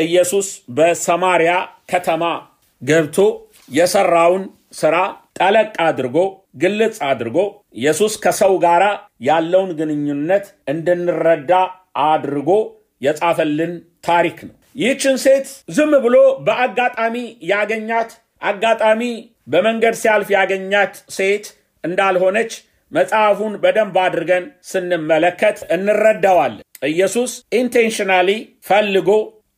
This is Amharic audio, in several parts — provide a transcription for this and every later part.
ኢየሱስ በሰማሪያ ከተማ ገብቶ የሰራውን ሥራ ጠለቅ አድርጎ ግልጽ አድርጎ ኢየሱስ ከሰው ጋር ያለውን ግንኙነት እንድንረዳ አድርጎ የጻፈልን ታሪክ ነው። ይህችን ሴት ዝም ብሎ በአጋጣሚ ያገኛት አጋጣሚ በመንገድ ሲያልፍ ያገኛት ሴት እንዳልሆነች መጽሐፉን በደንብ አድርገን ስንመለከት እንረዳዋለን። ኢየሱስ ኢንቴንሽናሊ ፈልጎ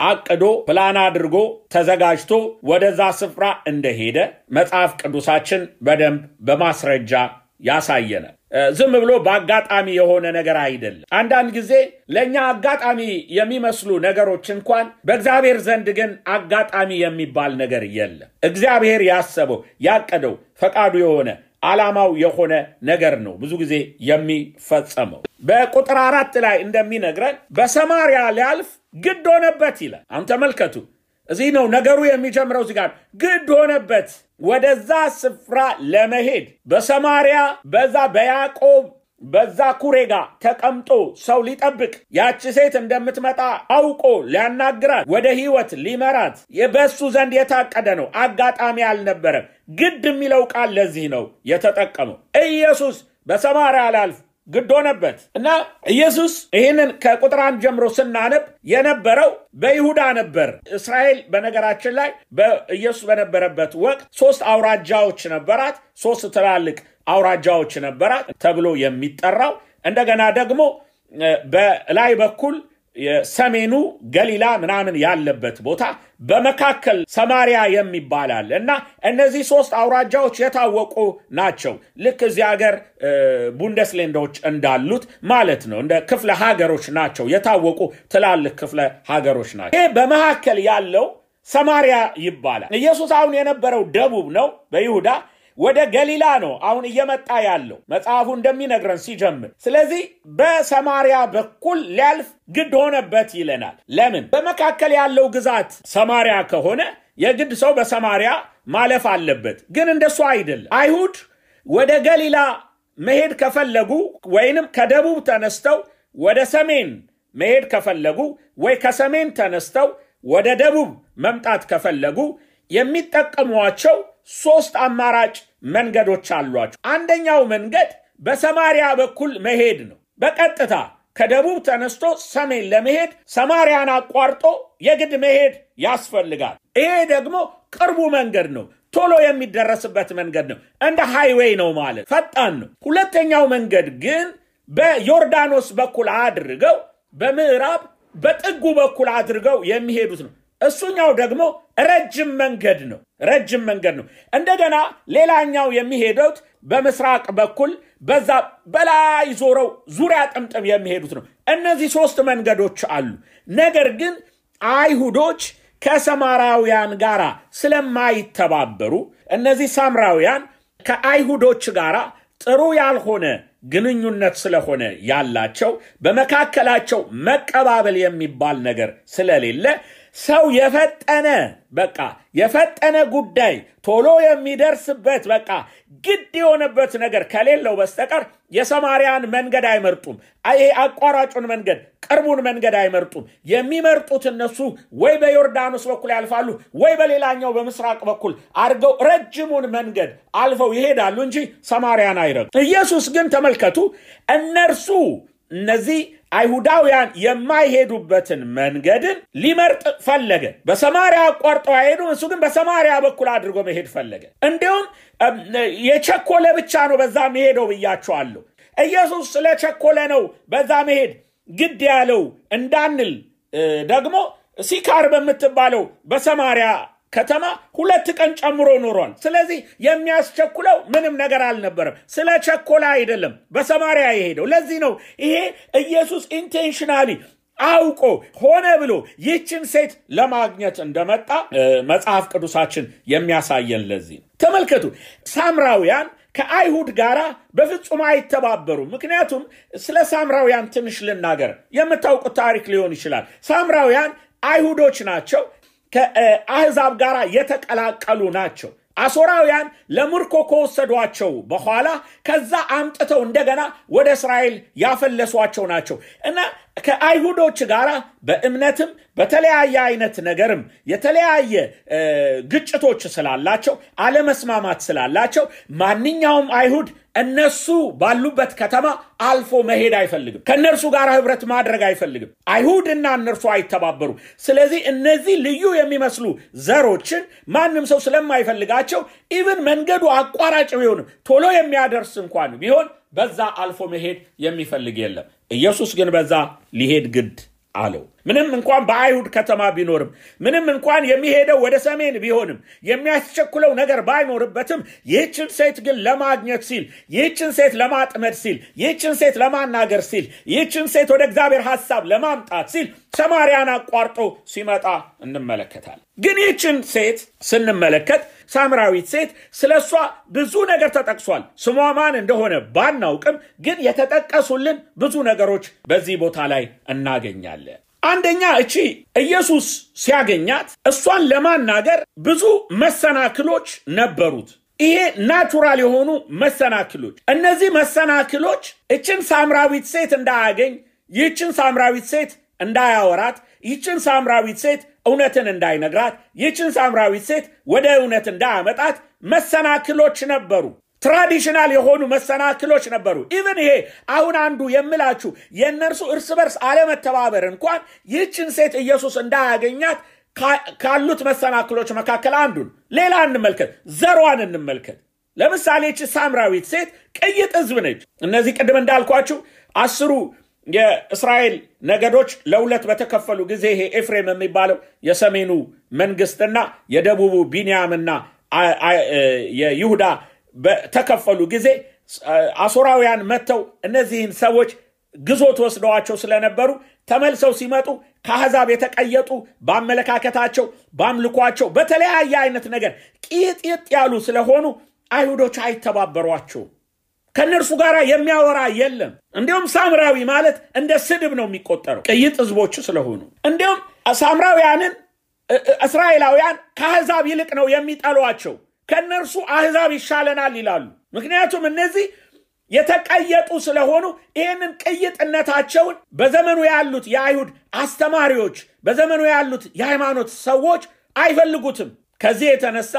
አቅዶ ፕላን አድርጎ ተዘጋጅቶ ወደዛ ስፍራ እንደሄደ መጽሐፍ ቅዱሳችን በደንብ በማስረጃ ያሳየናል። ዝም ብሎ በአጋጣሚ የሆነ ነገር አይደለም። አንዳንድ ጊዜ ለኛ አጋጣሚ የሚመስሉ ነገሮች እንኳን በእግዚአብሔር ዘንድ ግን አጋጣሚ የሚባል ነገር የለም። እግዚአብሔር ያሰበው ያቀደው ፈቃዱ የሆነ ዓላማው የሆነ ነገር ነው ብዙ ጊዜ የሚፈጸመው። በቁጥር 4 ላይ እንደሚነግረን በሰማሪያ ሊያልፍ ግድ ሆነበት ይላል። አሁን ተመልከቱ፣ እዚህ ነው ነገሩ የሚጀምረው። እዚህ ጋር ግድ ሆነበት ወደዛ ስፍራ ለመሄድ በሰማሪያ በዛ በያዕቆብ በዛ ኩሬጋ ተቀምጦ ሰው ሊጠብቅ ያቺ ሴት እንደምትመጣ አውቆ ሊያናግራት ወደ ሕይወት ሊመራት በሱ ዘንድ የታቀደ ነው። አጋጣሚ አልነበረም። ግድ የሚለው ቃል ለዚህ ነው የተጠቀመው። ኢየሱስ በሰማሪያ ላልፍ ግድ ሆነበት እና ኢየሱስ ይህንን ከቁጥር 1 ጀምሮ ስናነብ የነበረው በይሁዳ ነበር። እስራኤል በነገራችን ላይ በኢየሱስ በነበረበት ወቅት 3 አውራጃዎች ነበራት። 3 ትላልቅ አውራጃዎች ነበራት ተብሎ የሚጠራው። እንደገና ደግሞ በላይ በኩል የሰሜኑ ገሊላ ምናምን ያለበት ቦታ በመካከል ሰማሪያ የሚባላል እና እነዚህ 3 አውራጃዎች የታወቁ ናቸው። ልክ እዚህ ሀገር ቡንደስሌንዶች እንዳሉት ማለት ነው። እንደ ክፍለ ሀገሮች ናቸው። የታወቁ ትላልቅ ክፍለ ሀገሮች ናቸው። ይሄ በመካከል ያለው ሰማሪያ ይባላል። ኢየሱስ አሁን የነበረው ደቡብ ነው በይሁዳ ወደ ገሊላ ነው አሁን እየመጣ ያለው መጽሐፉ እንደሚነግረን ሲጀምር። ስለዚህ በሰማሪያ በኩል ሊያልፍ ግድ ሆነበት ይለናል። ለምን? በመካከል ያለው ግዛት ሰማሪያ ከሆነ የግድ ሰው በሰማሪያ ማለፍ አለበት። ግን እንደሱ አይደለም። አይሁድ ወደ ገሊላ መሄድ ከፈለጉ ወይንም ከደቡብ ተነስተው ወደ ሰሜን መሄድ ከፈለጉ ወይ ከሰሜን ተነስተው ወደ ደቡብ መምጣት ከፈለጉ የሚጠቀሟቸው 3 አማራጭ መንገዶች አሏቸው። አንደኛው መንገድ በሰማሪያ በኩል መሄድ ነው። በቀጥታ ከደቡብ ተነስቶ ሰሜን ለመሄድ ሰማሪያን አቋርጦ የግድ መሄድ ያስፈልጋል። ይሄ ደግሞ ቅርቡ መንገድ ነው። ቶሎ የሚደረስበት መንገድ ነው። እንደ ሃይዌይ ነው ማለት ፈጣን ነው። ሁለተኛው መንገድ ግን በዮርዳኖስ በኩል አድርገው በምዕራብ በጥጉ በኩል አድርገው የሚሄዱት ነው። እሱኛው ደግሞ ረጅም መንገድ ነው። እንደገና ሌላኛው የሚሄዱት በምስራቅ በኩል በዛ በላይ ዞረው ዙሪያ ጥምጥም የሚሄዱት ነው። እነዚህ 3 መንገዶች አሉ። ነገር ግን አይሁዶች ከሰማራውያን ጋር ስለማይተባበሩ እነዚህ ሳምራውያን ከአይሁዶች ጋር ጥሩ ያልሆነ ግንኙነት ስለሆነ ያላቸው በመካከላቸው መቀባበል የሚባል ነገር ስለሌለ ሰው የፈጠነ ጉዳይ ቶሎ የሚደርስበት ግድ የሆነበት ነገር ከሌለው በስተቀር የሰማሪያን መንገድ አይመርጡም። አቋራጩን መንገድ ቅርቡን መንገድ አይመርጡም። የሚመርጡት እነሱ ወይ በዮርዳኖስ በኩል ያልፋሉ ወይ በሌላኛው በምስራቅ በኩል አድርገው ረጅሙን መንገድ አልፈው ይሄዳሉ እንጂ ሰማሪያን አይረግጡም። ኢየሱስ ግን ተመልከቱ፣ እነዚህ አይሁዳውያን የማይሄዱበትን መንገድን ሊመርጥ ፈለገ። በሰማሪያ አቋርጠው አይሄዱም። እሱ ግን በሰማሪያ በኩል አድርጎ መሄድ ፈለገ። እንዲሁም የቸኮለ ብቻ ነው በዛ መሄደው ብያቸዋለሁ። ኢየሱስ ስለቸኮለ ነው በዛ መሄድ ግድ ያለው እንዳንል ደግሞ ሲካር በምትባለው በሰማሪያ ከተማ 2 ቀን ጨምሮ ኖሯል። ስለዚህ የሚያስቸኩለው ምንም ነገር አልነበረም። ስለቸኮለ አይደለም በሰማሪያ የሄደው። ለዚህ ነው ይሄ ኢየሱስ ኢንቴንሽናሊ አውቆ ሆነ ብሎ ይህችን ሴት ለማግኘት እንደመጣ መጽሐፍ ቅዱሳችን የሚያሳየን። ለዚህ ተመልከቱ፣ ሳምራውያን ከአይሁድ ጋር በፍጹም አይተባበሩም። ምክንያቱም ስለ ሳምራውያን ትንሽ ልናገር፣ የምታውቁት ታሪክ ሊሆን ይችላል። ሳምራውያን አይሁዶች ናቸው። ከአህዛብ ጋር የተቀላቀሉ ናቸው። አሶራውያን ለምርኮ ከወሰዷቸው በኋላ ከዛ አምጥተው እንደገና ወደ እስራኤል ያፈለሷቸው ናቸው እና ከአይሁዶች ጋር በእምነትም በተለያየ አይነት ነገርም የተለያየ ግጭቶች ስላላቸው አለመስማማት ስላላቸው ማንኛውም አይሁድ እነሱ ባሉበት ከተማ አልፎ መሄድ አይፈልግም። ከነርሱ ጋር ህብረት ማድረግ አይፈልግም። አይሁድና እነርሱ አይተባበሩ። ስለዚህ እነዚህ ልዩ የሚመስሉ ዘሮችን ማንም ሰው ስለማይፈልጋቸው ኢቭን መንገዱ አቋራጭ ቢሆን ቶሎ የሚያደርስ እንኳን ቢሆን በዛ አልፎ መሄድ የሚፈልግ የለም። ኢየሱስ ግን በዛ ሊሄድ ግድ አለው። ምንም እንኳን በአይሁድ ከተማ ቢኖርም ምንም እንኳን የሚሄደው ወደ ሰሜን ቢሆንም የሚያስቸኩለው ነገር ባይኖርበትም ይህችን ሴት ግን ለማግኘት ሲል ይህችን ሴት ለማጥመድ ሲል ይህችን ሴት ለማናገር ሲል ይህችን ሴት ወደ እግዚአብሔር ሐሳብ ለማምጣት ሲል ሰማርያን አቋርጦ ሲመጣ እንመለከታለን። ግን ይህችን ሴት ስንመለከት ሳምራዊት ሴት ስለሷ ብዙ ነገር ተጠቅሷል። ስሟ ማን እንደሆነ ባናውቅም ግን የተጠቀሱልን ብዙ ነገሮች በዚህ ቦታ ላይ እናገኛለን። አንደኛ እቺ ኢየሱስ ሲያገኛት እሷን ለማናገር ብዙ መሰናክሎች ነበሩት። ይሄ ናቹራል የሆኑ መሰናክሎች። እነዚህ መሰናክሎች እችን ሳምራዊት ሴት እንዳያገኝ፣ ይህችን ሳምራዊት ሴት እንዳያወራት፣ ይህችን ሳምራዊት ሴት እውነትን እንዳይነግራት፣ ይህችን ሳምራዊት ሴት ወደ እውነት እንዳያመጣት መሰናክሎች ነበሩ። ትራዲሽናል የሆኑ መሰናክሎች ነበሩ። ኢቭን ይሄ አሁን አንዱ የምላችሁ የነርሱ እርስ በርስ አለመተባበር እንኳን ይህችን ሴት ኢየሱስ እንዳያገኛት ካሉት መሰናክሎች መካከል አንዱን። ሌላ እንመልከት፣ ዘሯን እንመልከት። ለምሳሌ እቺ ሳምራዊት ሴት ቅይጥ ሕዝብ ነች። እነዚህ ቅድም እንዳልኳችሁ 10 የእስራኤል ነገዶች ለሁለት በተከፈሉ ጊዜ ይሄ ኤፍሬም የሚባለው የሰሜኑ መንግስትና የደቡቡ ቢንያምና የይሁዳ በተከፈሉ ጊዜ አሶራውያን መተው እነዚህን ሰዎች ግዞት ወስደዋቸው ስለነበሩ ተመልሰው ሲመጡ ከአሕዛብ የተቀየጡ በአመለካከታቸው በአምልኳቸው በተለያየ አይነት ነገር ቂጥጥ ያሉ ስለሆኑ አይሁዶች አይተባበሯቸው። ከነርሱ ጋር የሚያወራ የለም። እንዲሁም ሳምራዊ ማለት እንደ ስድብ ነው የሚቆጠረው ቅይጥ ሕዝቦች ስለሆኑ። እንዲሁም ሳምራውያንን እስራኤላውያን ከአሕዛብ ይልቅ ነው የሚጠሏቸው። ከነርሱ አሕዛብ ይሻለናል ይላሉ። ምክንያቱም እነዚህ የተቀየጡ ስለሆኑ ይህንን ቅይጥነታቸውን በዘመኑ ያሉት የአይሁድ አስተማሪዎች በዘመኑ ያሉት የሃይማኖት ሰዎች አይፈልጉትም። ከዚህ የተነሳ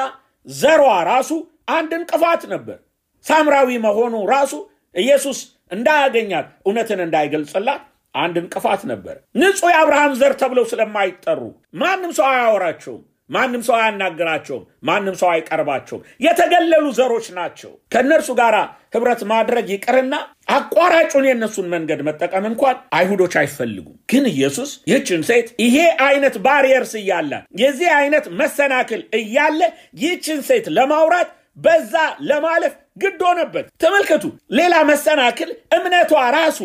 ዘሯ ራሱ አንድ እንቅፋት ነበር። ሳምራዊ መሆኑ ራሱ ኢየሱስ እንዳያገኛት እውነትን እንዳይገልጽላት አንድ እንቅፋት ነበር። ንጹህ የአብርሃም ዘር ተብለው ስለማይጠሩ ማንም ሰው አያወራቸውም፣ ማንም ሰው አያናግራቸውም፣ ማንም ሰው አይቀርባቸውም። የተገለሉ ዘሮች ናቸው። ከነርሱ ጋር ህብረት ማድረግ ይቅርና አቋራጩን የነሱን መንገድ መጠቀም እንኳን አይሁዶች አይፈልጉም። ግን ኢየሱስ ይህችን ሴት ይሄ አይነት ባሪየርስ እያለ የዚህ አይነት መሰናክል እያለ ይህችን ሴት ለማውራት በዛ ለማለፍ ግድ ሆነበት። ተመልከቱ፣ ሌላ መሰናክል እምነቷ ራሱ።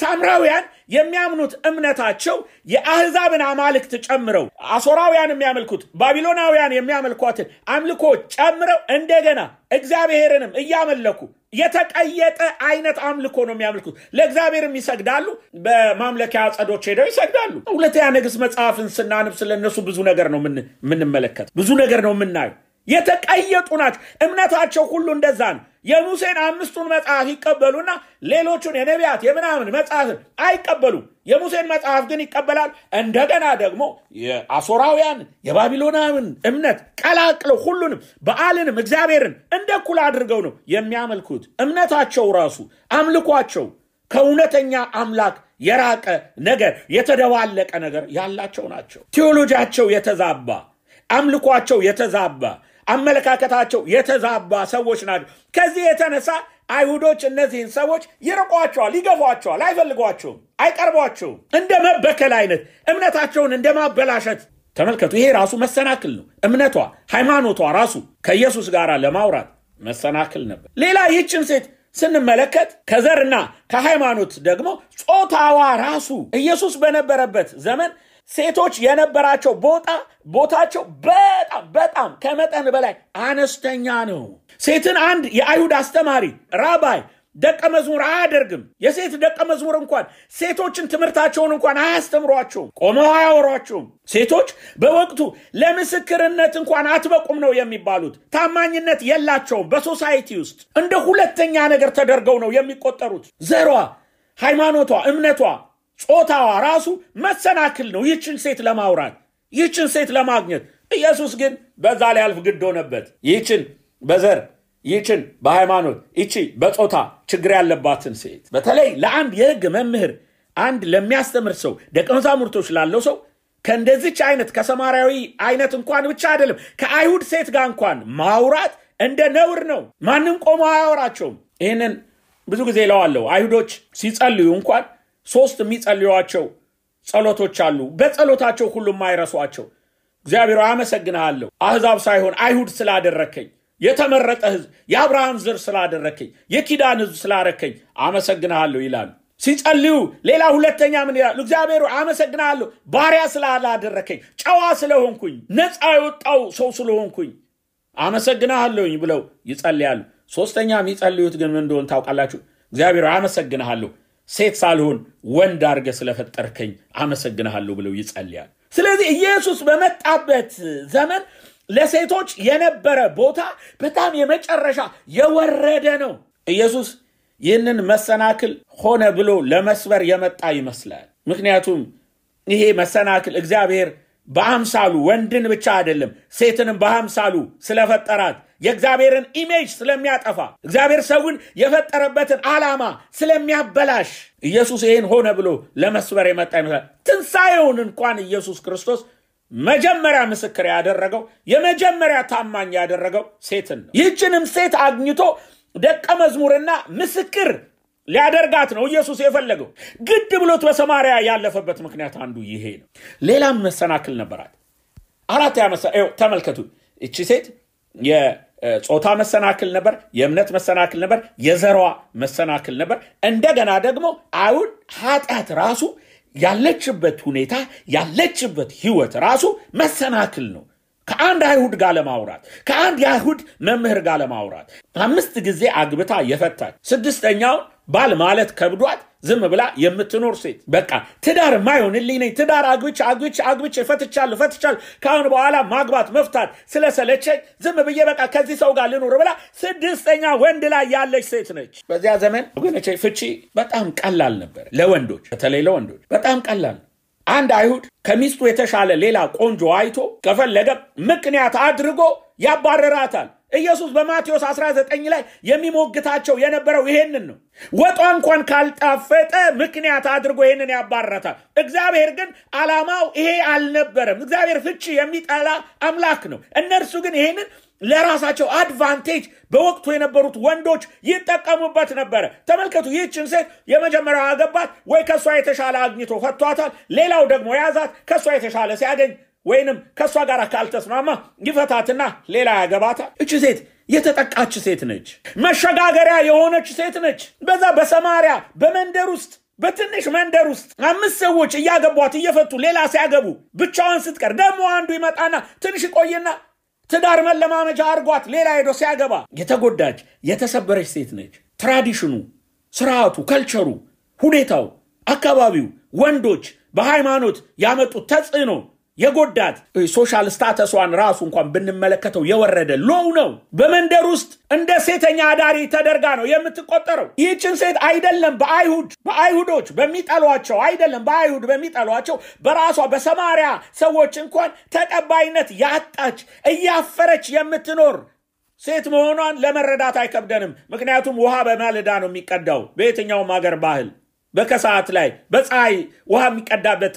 ሳምራውያን የሚያምኑት እምነታቸው የአሕዛብን አማልክት ጨምረው አሶራውያን የሚያመልኩት ባቢሎናውያን የሚያመልኳትን አምልኮ ጨምረው እንደገና እግዚአብሔርንም እያመለኩ የተቀየጠ አይነት አምልኮ ነው የሚያመልኩት። ለእግዚአብሔርም ይሰግዳሉ፣ በማምለኪያ አጸዶች ሄደው ይሰግዳሉ። ሁለተኛ ነገሥት መጽሐፍን ስናነብ ስለነሱ ብዙ ነገር ነው የምንመለከት፣ ብዙ ነገር ነው የምናየው። የተቀየጡ ናቸው። እምነታቸው ሁሉ እንደዛ ነው። የሙሴን 5ቱን መጽሐፍ ይቀበሉና ሌሎቹን የነቢያት የምናምን መጽሐፍን አይቀበሉም። የሙሴን መጽሐፍ ግን ይቀበላል። እንደገና ደግሞ የአሶራውያን የባቢሎናውያን እምነት ቀላቅለው ሁሉንም በዓልንም እግዚአብሔርን እንደ እኩል አድርገው ነው የሚያመልኩት። እምነታቸው ራሱ አምልኳቸው ከእውነተኛ አምላክ የራቀ ነገር፣ የተደባለቀ ነገር ያላቸው ናቸው። ቴዎሎጂያቸው የተዛባ፣ አምልኳቸው የተዛባ፣ አመለካከታቸው የተዛባ ሰዎች ናቸው። ከዚህ የተነሳ አይሁዶች እነዚህን ሰዎች ይርቋቸዋል፣ ይገፏቸዋል፣ አይፈልጓቸውም፣ አይቀርቧቸውም። እንደ መበከል አይነት እምነታቸውን እንደ ማበላሸት ተመልከቱ። ይሄ ራሱ መሰናክል ነው። እምነቷ ሃይማኖቷ ራሱ ከኢየሱስ ጋር ለማውራት መሰናክል ነበር። ሌላ ይህችን ሴት ስንመለከት ከዘርና ከሃይማኖት ደግሞ ጾታዋ ራሱ ኢየሱስ በነበረበት ዘመን ሴቶች የነበራቸው ቦታቸው በጣም ከመጠን በላይ አነስተኛ ነው። ሴትን አንድ የአይሁድ አስተማሪ ራባይ ደቀ መዝሙር አያደርግም። የሴት ደቀ መዝሙር እንኳን ሴቶችን ትምህርታቸውን እንኳን አያስተምሯቸውም፣ ቆመው አያወሯቸውም። ሴቶች በወቅቱ ለምስክርነት እንኳን አትበቁም ነው የሚባሉት። ታማኝነት የላቸውም። በሶሳይቲ ውስጥ እንደ ሁለተኛ ነገር ተደርገው ነው የሚቆጠሩት። ዘሯ፣ ሃይማኖቷ፣ እምነቷ ጾታዋ ራሱ መሰናክል ነው ይህችን ሴት ለማውራት ይህችን ሴት ለማግኘት። ኢየሱስ ግን በዛ ላይ አልፍ ግድ ሆነበት። ይህችን በዘር ይህችን በሃይማኖት ይህቺ በጾታ ችግር ያለባትን ሴት በተለይ ለአንድ የሕግ መምህር አንድ ለሚያስተምር ሰው ደቀ መዛሙርቶች ላለው ሰው ከእንደዚች አይነት ከሰማርያዊ አይነት እንኳን ብቻ አይደለም ከአይሁድ ሴት ጋር እንኳን ማውራት እንደ ነውር ነው። ማንም ቆሞ አያወራቸውም። ይህንን ብዙ ጊዜ እለዋለሁ። አይሁዶች ሲጸልዩ እንኳን 3 የሚጸልዩዋቸው ጸሎቶች አሉ። በጸሎታቸው ሁሉም አይረሷቸው። እግዚአብሔር አመሰግናለሁ አሕዛብ ሳይሆን አይሁድ ስላደረከኝ፣ የተመረጠ ሕዝብ የአብርሃም ዘር ስላደረከኝ፣ የኪዳን ሕዝብ ስላደረከኝ አመሰግናለሁ ይላሉ። ሲጸልዩ ሌላ ሁለተኛ ምን ይላሉ? እግዚአብሔር አመሰግናለሁ ባሪያ ስላላደረከኝ፣ ጨዋ ስለሆንኩኝ፣ ነፃ የወጣው ሰው ስለሆንኩኝ አመሰግናለሁኝ ብለው ይጸልያሉ። ሶስተኛ የሚጸልዩት ግን ምን እንደሆነ ታውቃላችሁ? እግዚአብሔር አመሰግናለሁ ሴት ሳልሆን ወንድ አድርገህ ስለፈጠርከኝ አመሰግናለሁ ብለው ይጸልያሉ። ስለዚህ ኢየሱስ በመጣበት ዘመን ለሴቶች የነበረ ቦታ በጣም የመጨረሻ የወረደ ነው። ኢየሱስ ይህንን መሰናክል ሆነ ብሎ ለመስበር የመጣ ይመስላል። ምክንያቱም ይሄ መሰናክል እግዚአብሔር በአምሳሉ ወንድን ብቻ አይደለም ሴትንም በአምሳሉ ስለፈጠራት የእግዚአብሔርን ኢሜጅ ስለሚያጠፋ እግዚአብሔር ሰውን የፈጠረበትን ዓላማ ስለሚያበላሽ ኢየሱስ ይህን ሆነ ብሎ ለመስበር የመጣ ይመስላል። ትንሣኤውን እንኳን ኢየሱስ ክርስቶስ መጀመሪያ ምስክር ያደረገው የመጀመሪያ ታማኝ ያደረገው ሴትን ነው። ይህችንም ሴት አግኝቶ ደቀ መዝሙርና ምስክር ሊያደርጋት ነው ኢየሱስ የፈለገው። ግድ ብሎት በሰማርያ ያለፈበት ምክንያት አንዱ ይሄ ነው። ሌላም መሰናክል ነበራት። ተመልከቱ። እቺ ሴት የጾታ መሰናክል ነበር፣ የእምነት መሰናክል ነበር፣ የዘሯ መሰናክል ነበር። እንደገና ደግሞ አሁን ኃጢአት ራሱ ያለችበት ሁኔታ ያለችበት ህይወት ራሱ መሰናክል ነው። ከአንድ አይሁድ ጋር ለማውራት ከአንድ የአይሁድ መምህር ጋር ለማውራት 5 ጊዜ አግብታ የፈታች 6ኛው ባል ማለት ከብዷት ዝም ብላ የምትኖር ሴት በቃ ትዳር ማይሆንልኝ ነኝ ትዳር አግብቼ ፈትቻለሁ ካሁን በኋላ ማግባት መፍታት ስለሰለቸኝ ዝም ብዬ በቃ ከዚህ ሰው ጋር ልኖር ብላ 6ኛ ወንድ ላይ ያለች ሴት ነች። በዚያ ዘመን ወገኖቼ ፍቺ በጣም ቀላል ነበር። ለወንዶች በተለይ ለወንዶች በጣም ቀላል። አንድ አይሁድ ከሚስቱ የተሻለ ሌላ ቆንጆ አይቶ ከፈለገ ምክንያት አድርጎ ያባረራታል። ኢየሱስ በማቴዎስ 19 ላይ የሚሞግታቸው የነበረው ይሄንን ነው። ወጧ እንኳን ካልጣፈጠ ምክንያት አድርጎ ይሄንን ያባረራታል። እግዚአብሔር ግን ዓላማው ይሄ አልነበረም። እግዚአብሔር ፍቺ የሚጠላ አምላክ ነው። እነርሱ ግን ይሄንን ለራሳቸው አድቫንቴጅ በወቅቱ የነበሩት ወንዶች ይጠቀሙበት ነበር። ተመልከቱ። ይህችን ሴት የመጀመሪያው አገባት ወይ ከሷ የተሻለ አግኝቶ ፈቷታል። ሌላው ደግሞ ያዛት ከሷ የተሻለ ሲያገኝ ወይንም ከሷ ጋር ካልተስማማ ይፈታትና ሌላ ያገባታል። እቺ ሴት የተጠቃች ሴት ነች። መሸጋገሪያ የሆነች ሴት ነች። በዛ በሰማርያ በመንደር ውስጥ በትንሽ መንደር ውስጥ 5 ሰዎች እያገቧት እየፈቱ ሌላ ሲያገቡ ብቻዋን ስትቀር ደግሞ አንዱ ይመጣና ትንሽ ቆይና ትዳር መለማመጃ አርጓት ሌላ ሄዶ ሲያገባ የተጎዳች የተሰበረች ሴት ነች። ትራዲሽኑ፣ ስርዓቱ፣ ከልቸሩ፣ ሁኔታው፣ አካባቢው ወንዶች በሃይማኖት ያመጡት ተጽዕኖ የጎዳት ሶሻል ስታተስዋን ራሱ እንኳን ብንመለከተው የወረደ ሎው ነው። በመንደር ውስጥ እንደ ሴተኛ አዳሪ ተደርጋ ነው የምትቆጠረው። ይህችን ሴት አይደለም በአይሁዶች በሚጠሏቸው አይደለም በአይሁድ በሚጠሏቸው በራሷ በሰማርያ ሰዎች እንኳን ተቀባይነት ያጣች እያፈረች የምትኖር ሴት መሆኗን ለመረዳት አይከብደንም። ምክንያቱም ውሃ በማለዳ ነው የሚቀዳው በየትኛውም ሀገር ባህል። በከሰዓት ላይ በፀሐይ ውሃ የሚቀዳበት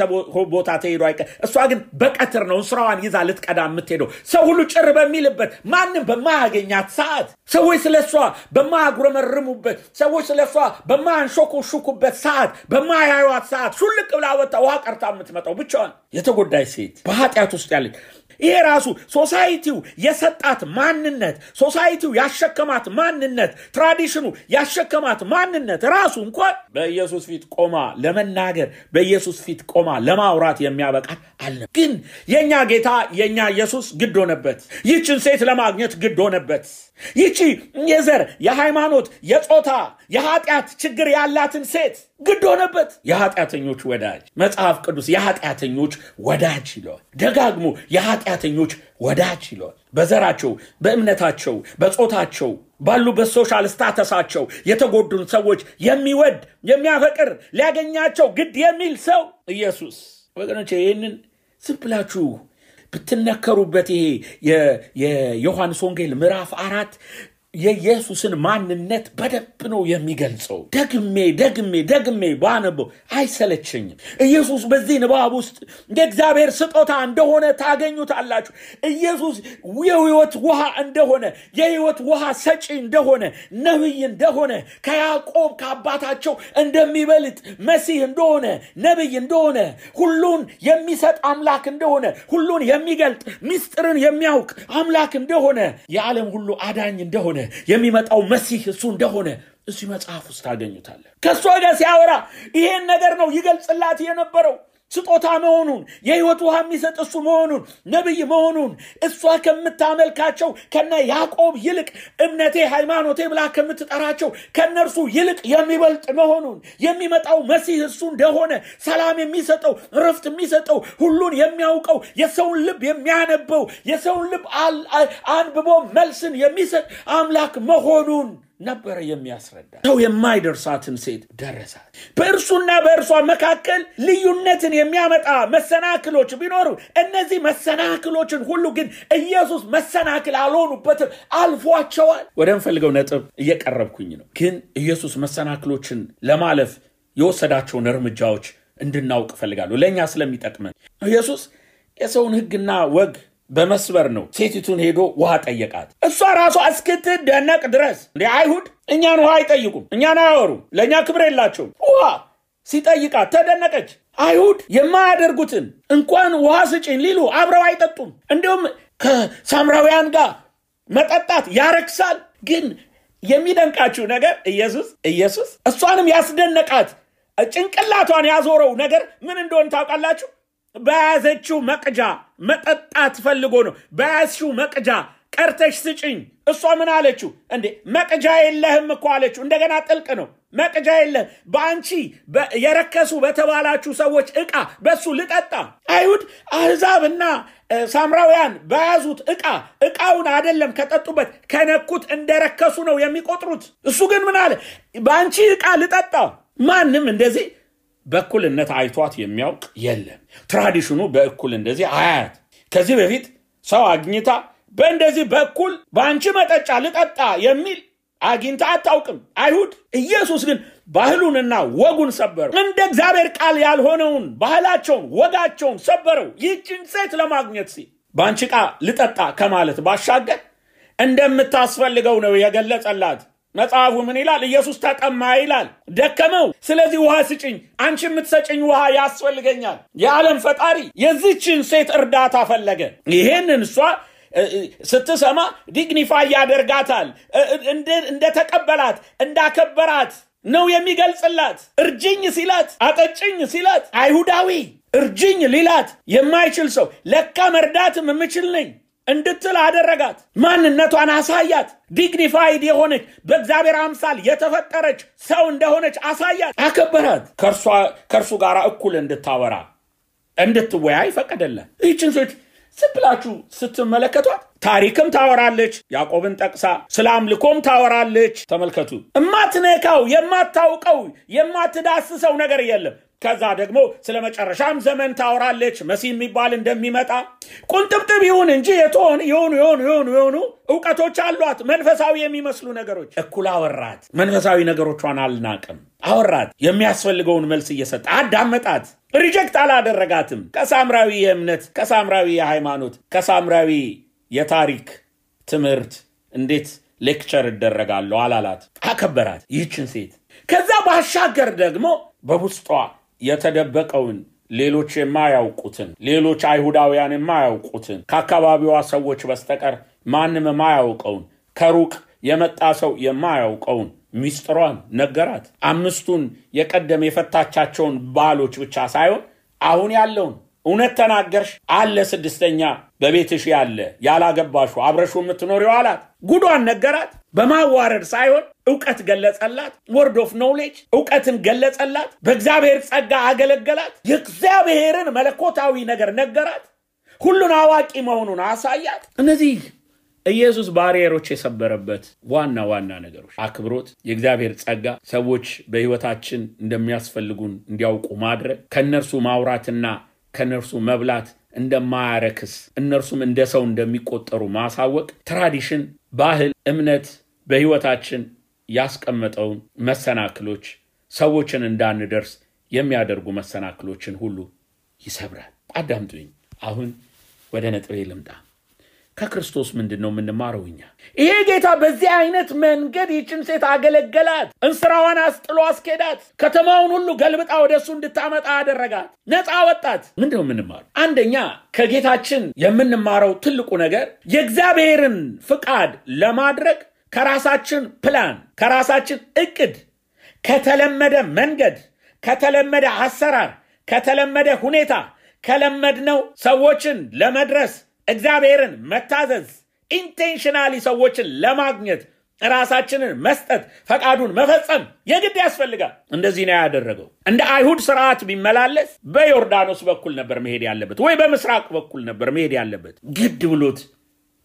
ቦታ ተሄዶ አይቀር። እሷ ግን በቀትር ነው ስራዋን ይዛ ልትቀዳ የምትሄደው። ሰው ሁሉ ጭር በሚልበት ማንም በማያገኛት ሰዓት፣ ሰዎች ስለሷ በማያጉረመርሙበት፣ ሰዎች ስለሷ በማያንሾኩሹኩበት ሰዓት፣ በማያዩት ሰዓት ሹልቅ ብላ ወጣ ውሃ ቀርታ የምትመጣው ብቻዋን የተጎዳች ሴት በኃጢአት ውስጥ ያለች። ይሄ ራሱ ሶሳይቲው የሰጣት ማንነት፣ ሶሳይቲው ያሸከማት ማንነት፣ ትራዲሽኑ ያሸከማት ማንነት ራሱ እንኳን በኢየሱስ ፊት ቆማ ለመናገር በኢየሱስ ፊት ቆማ ለማውራት የሚያበቃት አለ። ግን የኛ ጌታ የኛ ኢየሱስ ግድ ሆነበት። ይህችን ሴት ለማግኘት ግድ ሆነበት። ይህቺ የዘር የሃይማኖት የጾታ የኃጢአት ችግር ያላትን ሴት ግድ ሆነበት። የኃጢአተኞች ወዳጅ መጽሐፍ ቅዱስ የኃጢአተኞች ወዳጅ ይለዋል። ደጋግሞ የኃጢአተኞች ወዳጅ ይለዋል። በዘራቸው፣ በእምነታቸው፣ በጾታቸው ባሉበት ሶሻል ስታተሳቸው የተጎዱን ሰዎች የሚወድ የሚያፈቅር ሊያገኛቸው ግድ የሚል ሰው ኢየሱስ። ወገኖቼ ይህንን ዝም ብላችሁ ብትነከሩበት ይሄ የዮሐንስ ወንጌል ምዕራፍ 4 የኢየሱስን ማንነት በደንብ ነው የሚገልጸው። ደግሜ ባነበው አይሰለቸኝም። ኢየሱስ በዚህ ንባብ ውስጥ የእግዚአብሔር ስጦታ እንደሆነ ታገኙታላችሁ። ኢየሱስ የሕይወት ውሃ እንደሆነ፣ የሕይወት ውሃ ሰጪ እንደሆነ፣ ነብይ እንደሆነ፣ ከያዕቆብ ከአባታቸው እንደሚበልጥ መሲህ እንደሆነ፣ ነብይ እንደሆነ፣ ሁሉን የሚሰጥ አምላክ እንደሆነ፣ ሁሉን የሚገልጥ ምስጢርን የሚያውቅ አምላክ እንደሆነ፣ የዓለም ሁሉ አዳኝ እንደሆነ፣ የሚመጣው መሲህ እሱ እንደሆነ እዚህ መጽሐፍ ውስጥ ታገኙታለ። ከሷ ጋር ሲያወራ ይሄን ነገር ነው ይገልጽላት የነበረው። ስጦታ መሆኑን፣ የሕይወት ውሃ የሚሰጥ እሱ መሆኑን፣ ነብይ መሆኑን፣ እሷ ከምታመልካቸው ከነ ያዕቆብ ይልቅ እምነቴ ሃይማኖቴ ብላ ከምትጠራቸው ከነርሱ ይልቅ የሚበልጥ መሆኑን፣ የሚመጣው መሲህ እሱ እንደሆነ፣ ሰላም የሚሰጠው፣ ረፍት የሚሰጠው፣ ሁሉን የሚያውቀው፣ የሰውን ልብ የሚያነበው፣ የሰውን ልብ አንብቦ መልስን የሚሰጥ አምላክ መሆኑን ነበር የሚያስረዳ። ሰው የማይደርሳትን ሴት ደረሳት። በእርሱና በእርሷ መካከል ልዩነትን የሚያመጣ መሰናክሎች ቢኖሩ እነዚህ መሰናክሎችን ሁሉ ግን ኢየሱስ መሰናክል አልሆኑበትም፣ አልፏቸዋል። ወደምፈልገው ነጥብ እየቀረብኩኝ ነው። ግን ኢየሱስ መሰናክሎችን ለማለፍ የወሰዳቸውን እርምጃዎች እንድናውቅ ፈልጋለሁ፣ ለኛ ስለሚጠቅመን። ኢየሱስ የሰውን ሕግና ወግ በመስበር ነው ሴቲቱን ሄዶ ውሃ ጠየቃት። እሷ ራሷ እስክትደነቅ ድረስ እንደ አይሁድ እኛን ውሃ አይጠይቁም፣ እኛን አያወሩም፣ ለኛ ክብር የላቸውም። ውሃ ሲጠይቃት ተደነቀች። አይሁድ የማያደርጉትን እንኳን ውሃ ስጪኝ ሊሉ አብረው አይጠጡም። እንዲሁም ከሳምራውያን ጋር መጠጣት ያረክሳል። ግን የሚደንቃችሁ ነገር ኢየሱስ እሷንም ያስደነቃት ጭንቅላቷን ያዞረው ነገር ምን እንደሆነ ታውቃላችሁ? በያዘችው መቅጃ መጠጣት ፈልጎ ነው። በያዝሽው መቅጃ ቀርተሽ ስጪኝ። እሷ ምን አለችው? እንዴ መቅጃ የለህም እኮ አለችው። እንደገና ጥልቅ ነው። መቅጃ የለህም፣ በአንቺ የረከሱ በተባላችሁ ሰዎች ዕቃ በሱ ልጠጣ። አይሁድ አሕዛብና ሳምራውያን በያዙት ዕቃውን አይደለም ከጠጡበት ከነኩት እንደረከሱ ነው የሚቆጥሩት። እሱ ግን ምን አለ? በአንቺ ዕቃ ልጠጣ። ማንም እንደዚህ በእኩልነት አይቷት የሚያውቅ የለም። ትራዲሽኑ በእኩል እንደዚህ አያት። ከዚህ በፊት ሰው አግኝታ በእንደዚህ በእኩል በአንቺ መጠጫ ልጠጣ የሚል አግኝታ አታውቅም አይሁድ። ኢየሱስ ግን ባህሉንና ወጉን ሰበረው። እንደ እግዚአብሔር ቃል ያልሆነውን ባህላቸውን ወጋቸውን ሰበረው። ይህችን ሴት ለማግኘት ሲል በአንቺ ዕቃ ልጠጣ ከማለት ባሻገር እንደምታስፈልገው ነው የገለጸላት። መጽሐፉ ምን ይላል? ኢየሱስ ተጠማ ይላል፣ ደከመው። ስለዚህ ውሃ ስጭኝ፣ አንቺ የምትሰጭኝ ውሃ ያስፈልገኛል። የዓለም ፈጣሪ የዚችን ሴት እርዳታ ፈለገ። ይሄንን እሷ ስትሰማ ዲግኒፋይ ያደርጋታል። እንደተቀበላት እንዳከበራት ነው የሚገልጽላት። እርጅኝ ሲላት፣ አጠጭኝ ሲላት አይሁዳዊ እርጅኝ ሊላት የማይችል ሰው ለካ መርዳትም የምችል ነኝ እንድትል አደረጋት። ማንነቷን አሳያት። ዲግኒፋይድ የሆነች በእግዚአብሔር አምሳል የተፈጠረች ሰው እንደሆነች አሳያት፣ አከበራት። ከእርሱ ጋር እኩል እንድታወራ እንድትወያይ ፈቀደላት። ይህችን ሴት ስብላችሁ ስትመለከቷት ታሪክም ታወራለች። ያዕቆብን ጠቅሳ ስለ አምልኮም ታወራለች። ተመልከቱ። የማትነካው የማታውቀው የማትዳስሰው ነገር የለም። ከዛ ደግሞ ስለ መጨረሻም ዘመን ታወራለች። መሲህ የሚባል እንደሚመጣ ቁንጥብጥብ ይሁን እንጂ የሆኑ ዕውቀቶች አሏት፣ መንፈሳዊ የሚመስሉ ነገሮች። እኩል አወራት። መንፈሳዊ ነገሮቿን አልናቅም። አወራት። የሚያስፈልገውን መልስ እየሰጠ አዳመጣት። ሪጀክት አላደረጋትም። ከሳምራዊ የእምነት፣ ከሳምራዊ የሃይማኖት፣ ከሳምራዊ የታሪክ ትምህርት እንዴት ሌክቸር ይደረጋለሁ አላላት። አከበራት ይህችን ሴት። ከዛ ባሻገር ደግሞ በውስጧ የተደበቀውን ሌሎች የማያውቁትን፣ ሌሎች አይሁዳውያን የማያውቁትን፣ ከአካባቢዋ ሰዎች በስተቀር ማንም የማያውቀውን፣ ከሩቅ የመጣ ሰው የማያውቀውን ሚስጥሯን ነገራት። 5ቱን የቀደም የፈታቻቸውን ባሎች ብቻ ሳይሆን አሁን ያለውን እውነት ተናገርሽ አለ 6ኛ በቤትሽ ያለ ያላገባሹ አብረሹ የምትኖሪው አላት። ጉዷን ነገራት። በማዋረድ ሳይሆን ዕውቀት ገለጸላት word of knowledge ዕውቀትን ገለጸላት በእግዚአብሔር ጸጋ አገለገላት የእግዚአብሔርን መለኮታዊ ነገር ነገራት ሁሉን አዋቂ መሆኑን አሳያት እነዚህ ኢየሱስ ባሪየሮች የሰበረበት ዋና ነገሮች አክብሮት የእግዚአብሔር ጸጋ ሰዎች በህይወታችን እንደሚያስፈልጉን እንዲያውቁ ማድረግ ከነርሱ ማውራትና ከነርሱ መብላት እንደማያረክስ እነርሱም እንደ ሰው እንደሚቆጠሩ ማሳወቅ ትራዲሽን ባህል እምነት በህይወታችን ያስቀመጠው መሰናክሎች ሰዎችን እንዳንደርስ የሚያደርጉ መሰናክሎችን ሁሉ ይሰብራል አዳምጡኝ አሁን ወደ ነጥቤ ልምጣ ከክርስቶስ ምንድነው የምንማረውኛ ይሄ ጌታ በዚህ አይነት መንገድ ይችን ሴት አገለገላት እንስራዋን አስጥሎ አስኬዳት ከተማውን ሁሉ ገልብጣ ወደሱ እንድታመጣ አደረጋት ነፃ ወጣት ምንድነው የምንማረው አንደኛ ከጌታችን የምንማረው ትልቁ ነገር የእግዚአብሔርን ፍቃድ ለማድረግ ከራሳችን ፕላን ከራሳችን እቅድ ከተለመደ መንገድ ከተለመደ አሰራር ከተለመደ ሁኔታ ከለመድነው ሰዎችን ለመድረስ እግዚአብሔርን መታዘዝ ኢንቴንሽናሊ ሰዎችን ለማግኘት ራሳችንን መስጠት ፈቃዱን መፈጸም የግድ ያስፈልጋል እንደዚህ ነው ያደረገው እንደ አይሁድ ሥርዓት ቢመላለስ በዮርዳኖስ በኩል ነበር መሄድ ያለበት ወይ በምስራቅ በኩል ነበር መሄድ ያለበት ግድ ብሎት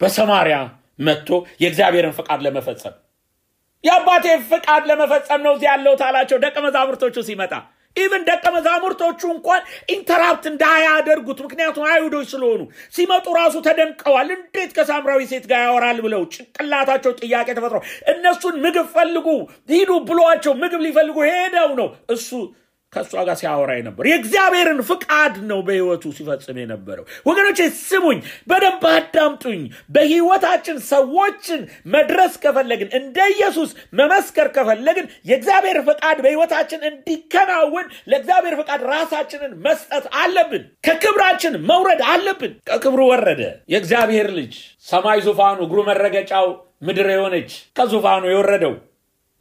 በሰማሪያ መጥቶ የእግዚአብሔርን ፈቃድ ለመፈጸም ያባቴ ፈቃድ ለመፈጸም ነው እዚህ ያለው ታላቸው ደቀ መዛሙርቶቹ ሲመጣ even ደቀ መዛሙርቶቹ እንኳን ኢንተራፕት እንዳያደርጉት ምክንያቱም አይሁዶች ስለሆኑ ሲመጡ ራሱ ተደንቀዋል እንዴት ከሳምራዊ ሴት ጋር ያወራል ብለው ጭንቅላታቸው ጥያቄ ተፈጥሮ እነሱን ምግብ ፈልጉ ሂዱ ብሏቸው ምግብ ሊፈልጉ ሄደው ነው እሱ ከሷ ጋር ሲያወራ ነበር የእግዚአብሔርን ፍቃድ ነው በህይወቱ ሲፈጽም የነበረው ወገኖቼ ስሙኝ በደንብ አዳምጡኝ በህይወታችን ሰዎችን መድረስ ከፈለግን እንደ ኢየሱስ መመስከር ከፈለግን የእግዚአብሔር ፍቃድ በህይወታችን እንዲከናወን ለእግዚአብሔር ፍቃድ ራሳችንን መስጠት አለብን ከክብራችን መውረድ አለብን ከክብሩ ወረደ የእግዚአብሔር ልጅ ሰማይ ዙፋኑ እግሩ መረገጫው ምድር የሆነች ከዙፋኑ የወረደው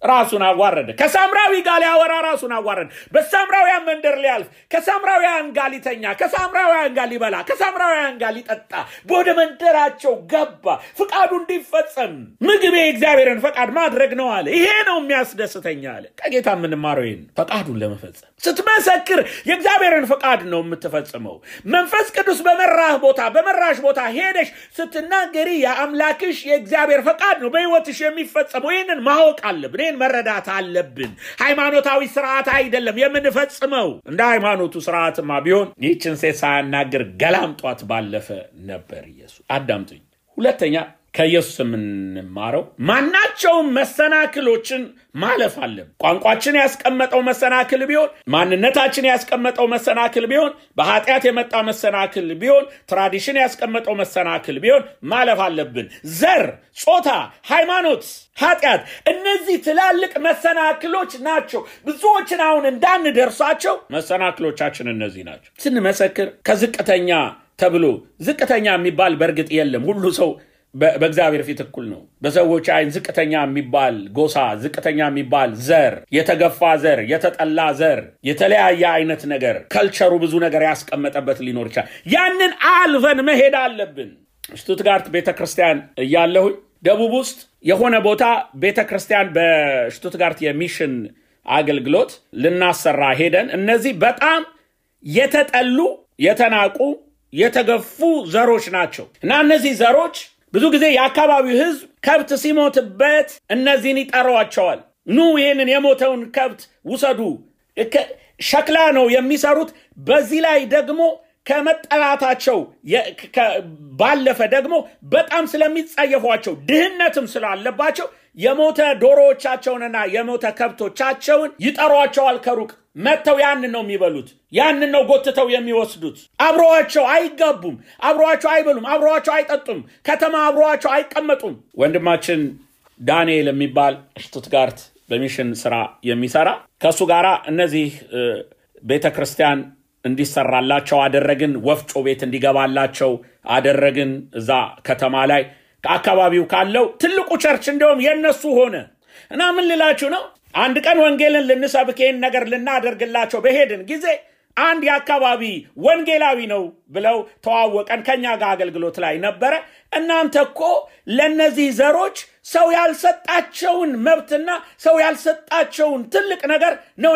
ራሱን አዋረደ ከሳምራዊ ጋር ያወራ ራሱን አዋረደ በሳምራውያን መንደር ሊያልፍ ከሳምራውያን ጋር ሊተኛ ከሳምራውያን ጋር ሊበላ ከሳምራውያን ጋር ሊጠጣ ወደ መንደራቸው ገባ ፍቃዱ እንዲፈጸም ምግብ የእግዚአብሔርን ፈቃድ ማድረግ ነው አለ ይሄ ነው የሚያስደስተኝ አለ ከጌታ ምንማረው ይሄን ፈቃዱን ለመፈጸም ስትመሰክር የእግዚአብሔርን ፈቃድ ነው የምትፈጽመው መንፈስ ቅዱስ በመራሽ ቦታ ሄደሽ ስትናገሪ የአምላክሽ የእግዚአብሔር ፈቃድ ነው በህይወትሽ የሚፈጸመው ይሄንን ማወቅ አለብን መረዳት አለብን ሃይማኖታዊ ሥርዓት አይደለም የምንፈጽመው እንደ ሃይማኖቱ ሥርዓትማ ቢሆን ይህችን ሴት ሳያናገር ገላምጧት ባለፈ ነበር ኢየሱስ አዳምጡኝ ሁለተኛ ከኢየሱስ የምንማረው ማናቸውም መሰናክሎችን ማለፍ አለብን ቋንቋችን ያስቀመጠው መሰናክል ቢሆን ማንነታችን ያስቀመጠው መሰናክል ቢሆን በኃጢአት የመጣ መሰናክል ቢሆን ትራዲሽን ያስቀመጠው መሰናክል ቢሆን ማለፍ አለብን ዘር ጾታ ሃይማኖት ኃጢአት እነዚህ ትላልቅ መሰናክሎች ናቸው ብዙዎችን አሁን እንዳንደርሳቸው መሰናክሎቻችን እነዚህ ናቸው ስንመሰክር ከዝቅተኛ ተብሎ ዝቅተኛ የሚባል በርግጥ የለም ሁሉ ሰው በእግዚአብሔር ፊት እኩል ነው በሰዎች አይን ዝቅተኛ የሚባል ጎሳ ዝቅተኛ የሚባል ዘር የተገፋ ዘር የተጠላ ዘር የተለያየ አይነት ነገር ካልቸሩ ብዙ ነገር ያስቀመጠበት ሊኖር ይችላል ያንን አልፈን መሄድ አለብን ሽቱትጋርት ቤተክርስቲያን ያለው ደቡብ ውስጥ የሆነ ቦታ ቤተክርስቲያን በሽቱትጋርት የሚሽን አገልግሎት ልናሰራ ሄደን እነዚህ በጣም የተጠሉ የተናቁ የተገፉ ዘሮች ናቸው እና እነዚህ ዘሮች ብዙ ጊዜ የአካባቢው ህዝብ ከብት ሲሞትበት እነዚህን ይጠሯቸዋል ኑ ይሄንን የሞተውን ከብት ውሰዱ ሸክላ ነው የሚሰሩት በዚህ ላይ ደግሞ ከመጠላታቸው ባለፈ ደግሞ በጣም ስለሚጻየፏቸው ድህነትም ስላለባቸው የሞተ ዶሮዎቻቸውንና የሞተ ከብቶቻቸውን ይጠሯቸዋል ከሩቅ መተው ያንን ነው የሚበሉት ያንን ነው ጎትተው የሚወስዱት አብሮአቸው አይጋቡም አብሮአቸው አይበሉም አብሮአቸው አይጠጡም ከተማ አብሮአቸው አይቀመጡም ወንድማችን ዳንኤል የሚባል ሽቱትጋርት በሚሽን ስራ የሚሰራ ከሱ ጋራ እነዚህ ቤተክርስቲያን እንዲሰራላቸው አደረግን ወፍጮ ቤት እንዲገባላቸው አደረግን እዛ ከተማ ላይ ከአካባቢው ካለው ትልቁ ቸርች እንደውም የነሱ ሆነ እና ምን ልላችሁ ነው አንድ ቀን ወንጌልን ልንሰብከን ነገር ልናደርግላቸው በሄድን ጊዜ አንድ የአካባቢ ወንጌላዊ ነው ብለው ተዋወቀን ከኛ ጋር አገልግሎት ላይ ነበረ እናንተ እኮ ለነዚህ ዘሮች ሰው ያልሰጣቸውን መብትና ሰው ያልሰጣቸውን ትልቅ ነገር ነው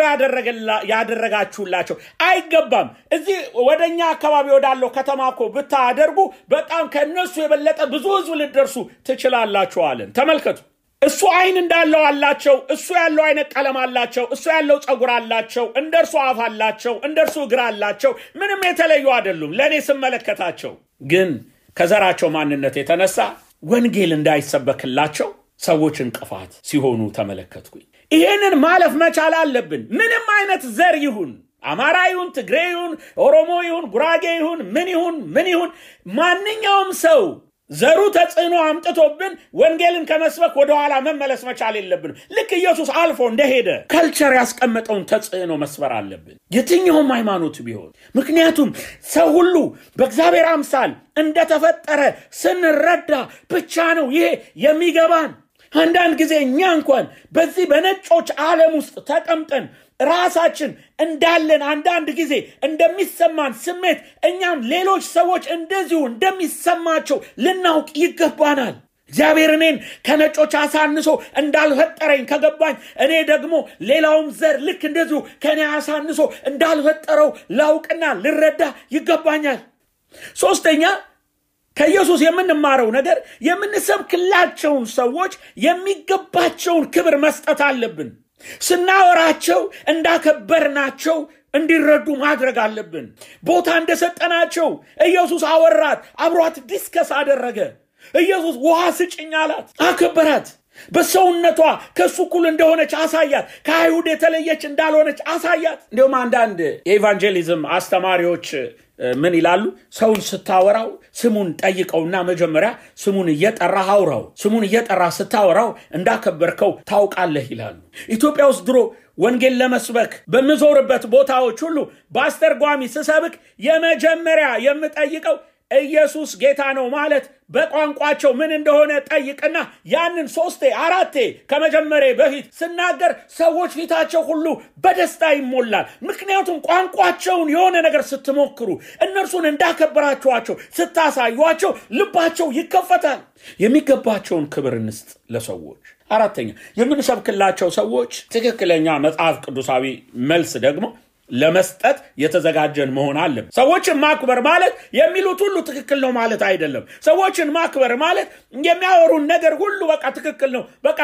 ያደረጋችሁላቸው አይገባም እዚህ ወደኛ አካባቢ ወዳለው ከተማኮ ብታደርጉ በጣም ከነሱ የበለጠ ብዙ ህዝብ ልደርሱ ትችላላችሁ አለን ተመልከቱ እሱ አይን እንዳለው አላቸው እሱ ያለው አይነ ቀለም አላቸው እሱ ያለው ጸጉር አላቸው እንደርሱ አፍ አላቸው እንደርሱ እግር አላቸው ምንም የተለዩ አይደሉም ለኔ ስመለከታቸው ግን ከዘራቸው ማንነት የተነሳ ወንጌል እንዳይሰበክላቸው ሰዎች እንቅፋት ሲሆኑ ተመለከትኩኝ ይሄንን ማለፍ መቻል አለብን ምንም አይነት ዘር ይሁን አማራ ይሁን ትግሬ ይሁን ኦሮሞ ይሁን ጉራጌ ይሁን ምን ይሁን ማንኛውም ሰው ዘሩ ተጽዕኖ አምጥቶብን ወንጌልን ከመስበክ ወደ ኋላ መመለስ መቻል የለብን ልክ ኢየሱስ አልፎ እንደሄደ ካልቸር ያስቀመጠውን ተጽዕኖ መስበር አለብን የትኛውም ሃይማኖት ቢሆን ምክንያቱም ሰው ሁሉ በእግዚአብሔር አምሳል እንደተፈጠረ ስንረዳ ብቻ ነው ይሄ የሚገባን አንዳንድ ጊዜ እኛ እንኳን በዚህ በነጮች ዓለም ውስጥ ተቀምጠን ራሳችን እንዳለን አንዳንድ ጊዜ እንደሚሰማን ስሜት እኛም ሌሎች ሰዎች እንደዚሁ እንደሚሰማቸው ልናውቅ ይገባናል እግዚአብሔር እኔን ከነጮች አሳንሶ እንዳልፈጠረኝ ከገባኝ እኔ ደግሞ ሌላውም ዘር ልክ እንደዚሁ ከኔ አሳንሶ እንዳልፈጠረው ላውቅና ልረዳ ይገባኛል ሶስተኛ ከኢየሱስ የምንማረው ነገር የምንሰብክላቸውን ሰዎች የሚገባቸውን ክብር መስጠት አለብን ስናወራቸው እንዳከበርናቸው እንዲረዱ ማድረግ አለብን ቦታ እንደሰጠናቸው ኢየሱስ አወራት አብሯት ዲስከስ አደረገ ኢየሱስ ውሃ ስጭኝ አላት አከበራት በሰውነቷ ከሱ ኩል እንደሆነች አሳያት ከአይሁድ የተለየች እንዳልሆነች አሳያት እንደውም አንዳንድ የኢቫንጀሊዝም አስተማሪዎች ምን ይላሉ ሰውን ስታወራው ስሙን ጠይቀውና መጀመሪያ ስሙን እየጠራህ አውራው ስሙን እየጠራህ ስታወራው እንዳከበርከው ታውቃለህ ይላሉ ኢትዮጵያ ውስጥ ድሮ ወንጌል ለመስበክ በመዞርበት ቦታዎች ሁሉ በአስተርጓሚ ስሰብክ የመጀመሪያ የምጠይቀው ኢየሱስ ጌታ ነው ማለት በቋንቋቸው ምን እንደሆነ ጠይቅና ያንን 3-4 ከመጀመሪያ በፊት ስናገር ሰዎች ፊታቸው ሁሉ በደስታ ይሞላል ምክንያቱም ቋንቋቸውን የሆነ ነገር ስትሞክሩ እነርሱን እንዳከበራችኋቸው ስታሳዩአቸው ልባቸው ይከፈታል የሚገባቸውን ክብር እንስጥ ለሰዎች አራተኛ የምንሰብክላቸው ሰዎች ትክክለኛ መጽሐፍ ቅዱሳዊ መልስ ደግሞ ለመስጠት የተዘጋጀን መሆን አለበት ሰዎችን ማክበር ማለት የሚሉት ሁሉ ትክክል ነው ማለት አይደለም ሰዎችን ማክበር ማለት የሚያወሩን ነገር ሁሉ በቃ ትክክል ነው በቃ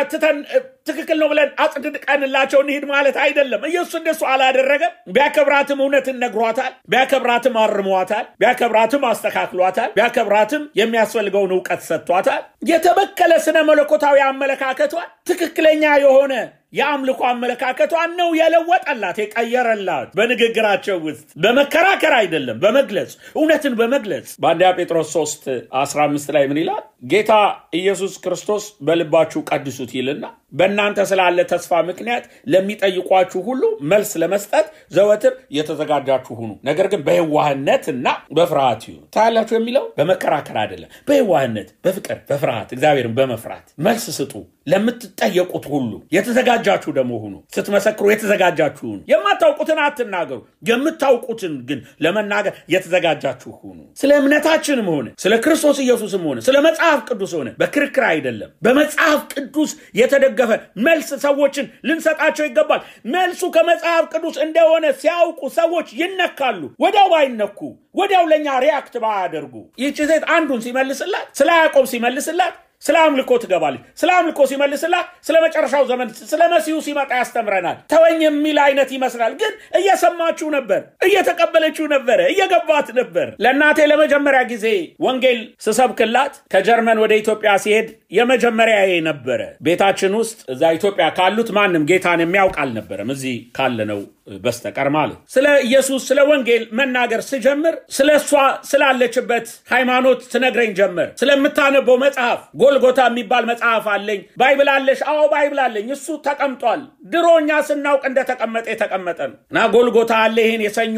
ትክክል ነው ብለን አጽድቀንላቸው እንሂድ ማለት አይደለም ኢየሱስ እንደሱ አላደረገም ቢያከብራትም እውነትን ነግሯታል ቢያከብራትም አርሟታል ቢያከብራትም አስተካክሏታል ቢያከብራትም የሚያስፈልገውን ዕውቀት ሰጥቷታል የተበከለ ስነ መለኮታዊ አመለካከቷ ትክክለኛ የሆነ የአምልኮ አመለካከቷን ነው የለወጠላት የቀየረላት በንግግራቸው ውስጥ በመከራከር አይደለም በመግለጽ እውነትን በመግለጽ በአንደኛ ጴጥሮስ 3:15 ላይ ምን ይላል ጌታ ኢየሱስ ክርስቶስ በልባችሁ ቀድሱት ይልና በእናንተ ስላለ ተስፋ ምክንያት ለሚጠይቋችሁ ሁሉ መልስ ለመስጠት ዘወትር የተዘጋጃችሁ ሁኑ ነገር ግን በየዋህነትና በፍርሃት ይሁኑ ታላችሁ የሚለው በመከራከር አይደለም በየዋህነት በፍቅር በፍርሃት እግዚአብሔርን በመፍራት መልስ ስጡ ለምትጠየቁት ሁሉ የተዘጋጃችሁ ደሞ ሁኑ ስትመሰክሩ የተዘጋጃችሁ ሁኑ የማታውቁትን አትናገሩ የምታውቁትን ግን ለመናገር የተዘጋጃችሁ ሁኑ ስለ እምነታችንም ሆነ ስለ ክርስቶስ ኢየሱስም ሆነ ስለ መጽሐፍ ቅዱስ ሆነ በክርክር አይደለም በመጽሐፍ ቅዱስ የተደገፈ መልስ ሰዎችን ልንሰጣቸው ይገባል መልሱ ከመጽሐፍ ቅዱስ እንደሆነ ሲያውቁ ሰዎች ይነካሉ ወዲያው ባይነኩ ወዲያው ለኛ ሪአክት ባያደርጉ ይህች ሴት አንዱን ሲመልስላት ስለ ያዕቆብ ሲመልስላት ስለ አምልኮ ትገባለች ስለ አምልኮ ሲመልስላት ስለ መጨረሻው ዘመን ስለ መሲሁ ሲመጣ ያስተምረናል ተወኝ የሚል አይነት ይመስላል ግን እየሰማችሁ ነበር እየተቀበለችው ነበር እየገባት ነበር ለእናቴ ለመጀመሪያ ጊዜ ወንጌል ስሰብክላት ከጀርመን ወደ ኢትዮጵያ ሲሄድ የመጀመሪያዬ ነበር ቤታችን ውስጥ እዛ ኢትዮጵያ ካሉት ማንም ጌታን የሚያውቅ አልነበረም እዚህ ካለነው በስተቀር ማለት ስለ ኢየሱስ ስለ ወንጌል መናገር ሲጀምር ስለሷ ስላለችበት ሃይማኖት ትነግረኝ ጀመር ስለምታነበው መጽሐፍ ጎልጎታ የሚባል መጽሐፍ አለኝ ባይብል አለሽ አዎ ባይብል አለኝ እሱ ተቀምጧል ድሮኛ ስናውቅ እንደተቀመጠ የተቀመጠ ነውና ጎልጎታ አለ ይሄን የሰኞ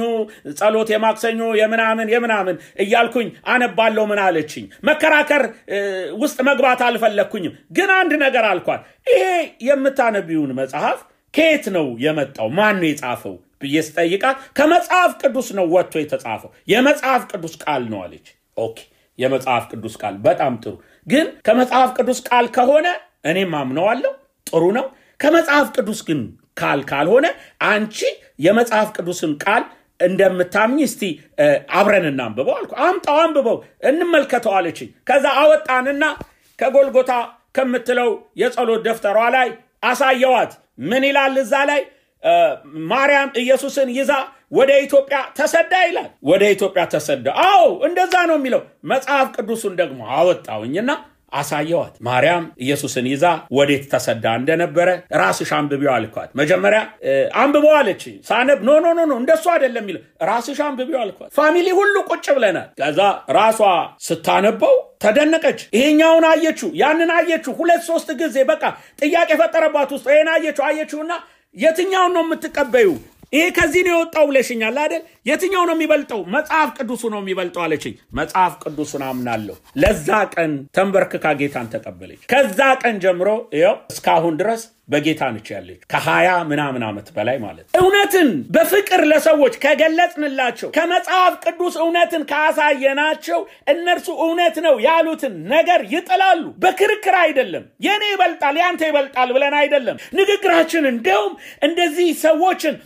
ጸሎት የማክሰኞ የምናምን እያልኩኝ አነባለሁ ምን አለችኝ መከራከር ውስጥ መግባት አልፈለኩኝም ግን አንድ ነገር አልኳት ይሄ የምታነቢውን መጽሐፍ ከየት ነው የመጣው ማን ነው የጻፈው ብዬ ስጠይቃት ከመጽሐፍ ቅዱስ ነው ወጥቶ የተጻፈው የመጽሐፍ ቅዱስ ቃል ነው አለች። ኦኬ የመጽሐፍ ቅዱስ ቃል በጣም ጥሩ ግን ከመጽሐፍ ቅዱስ ቃል ከሆነ እኔም አምነዋለሁ ጥሩ ነው ከመጽሐፍ ቅዱስ ግን ካልሆነ አንቺ የመጽሐፍ ቅዱስን ቃል እንደምታምኚ እስቲ አብረን እናንብበው አልኩ። አምጣው አንብበው እንመልከተው አለችኝ። ከዛ አወጣንና ከጎልጎታ ከምትለው የጸሎት ደፍተሯ ላይ አሳየዋት። ምን ይላል እዛ ላይ? ማርያም ኢየሱስን ይዛ ወደ ኢትዮጵያ ተሰዳ ይላል። ወደ ኢትዮጵያ ተሰዳ። አዎ እንደዛ ነው የሚለው። መጽሐፍ ቅዱስን ደግሞ አወጣውኝና አሳየዋት። ማርያም ኢየሱስን ይዛ ወዴት ተሰዳ እንደነበረ ራስሽ አንብቢው አልኳት። መጀመሪያ አንብበው አለች። ሳነብ ኖ እንደሱ አይደለም የሚለው ራስሽ አንብቢው አልኳት። ፋሚሊ ሁሉ ቁጭ ብለናል። ከዛ ራሷ ስታነበው ተደነቀች። ይሄኛውን አየችው ያንን አየችው 2-3 ጊዜ በቃ ጥያቄ ፈጠረባት ውስጥ ይሄን አየችውና የትኛውን ነው የምትቀበዩ? ይሄ ከዚህ ነው የወጣው ብለሽኛል አይደል? የትኛው ነው የሚበልጠው? መጽሐፍ ቅዱሱ ነው የሚበልጠው አለችኝ። መጽሐፍ ቅዱስን አምናለሁ። ለዛ ቀን ተንበርክካ ጌታን ተቀበለች። ከዛ ቀን ጀምሮ ይኸው እስካሁን ድረስ በጌታ ነች ያለች ከ20 ምናምን ዓመት በላይ ማለት። እውነትን በፍቅር ለሰዎች ከገለጽንላቸው ከመጽሐፍ ቅዱስ እውነትን ካሳየናቸው እነርሱ እውነት ነው ያሉትን ነገር ይጥላሉ። በክርክር አይደለም የኔ ይበልጣል ያንተ ይበልጣል ብለን አይደለም ንግግራችን። እንደውም እንደዚህ ሰዎችን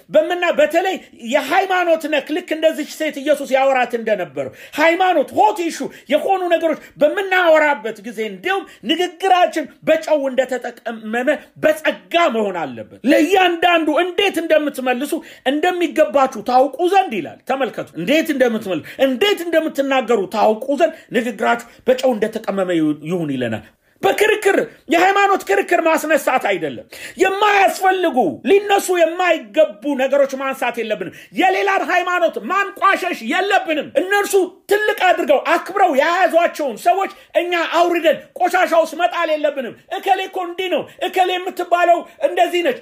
በተለይ የሃይማኖት ነክ ልክ እንደዚህ ሴት ኢየሱስ ያወራት እንደነበረው ሃይማኖት ሆት ኢሹ የሆኑ ነገሮች በመናወራበት ጊዜ እንደውም ንግግራችን በጨው እንደተጠቀመመ በጸጋ መሆን አለበት። ለእያንዳንዱ እንዴት እንደምትመልሱ እንደሚገባችሁ ታውቁ ዘንድ ይላል። ተመልከቱ እንዴት እንደምትመልሱ እንዴት እንደምትናገሩ ታውቁ ዘንድ ንግግራችሁ በጨው እንደተቀመመ ይሁን ይለናል። በክርክር የሃይማኖት ክርክር ማስነሳት አይደለም። የማያስፈልጉ ሊነሱ የማይገቡ ነገሮች ማንሳት የለብንም። የሌላን ሃይማኖት ማንቋሸሽ የለብንም። እነርሱ ትልቅ አድርገው አክብረው ያያዟቸውን ሰዎች እኛ አውርደን ቆሻሻውስ መጣል የለብንም። እከሌ እኮ እንዲህ ነው እከሌ የምትባለው እንደዚህ ነች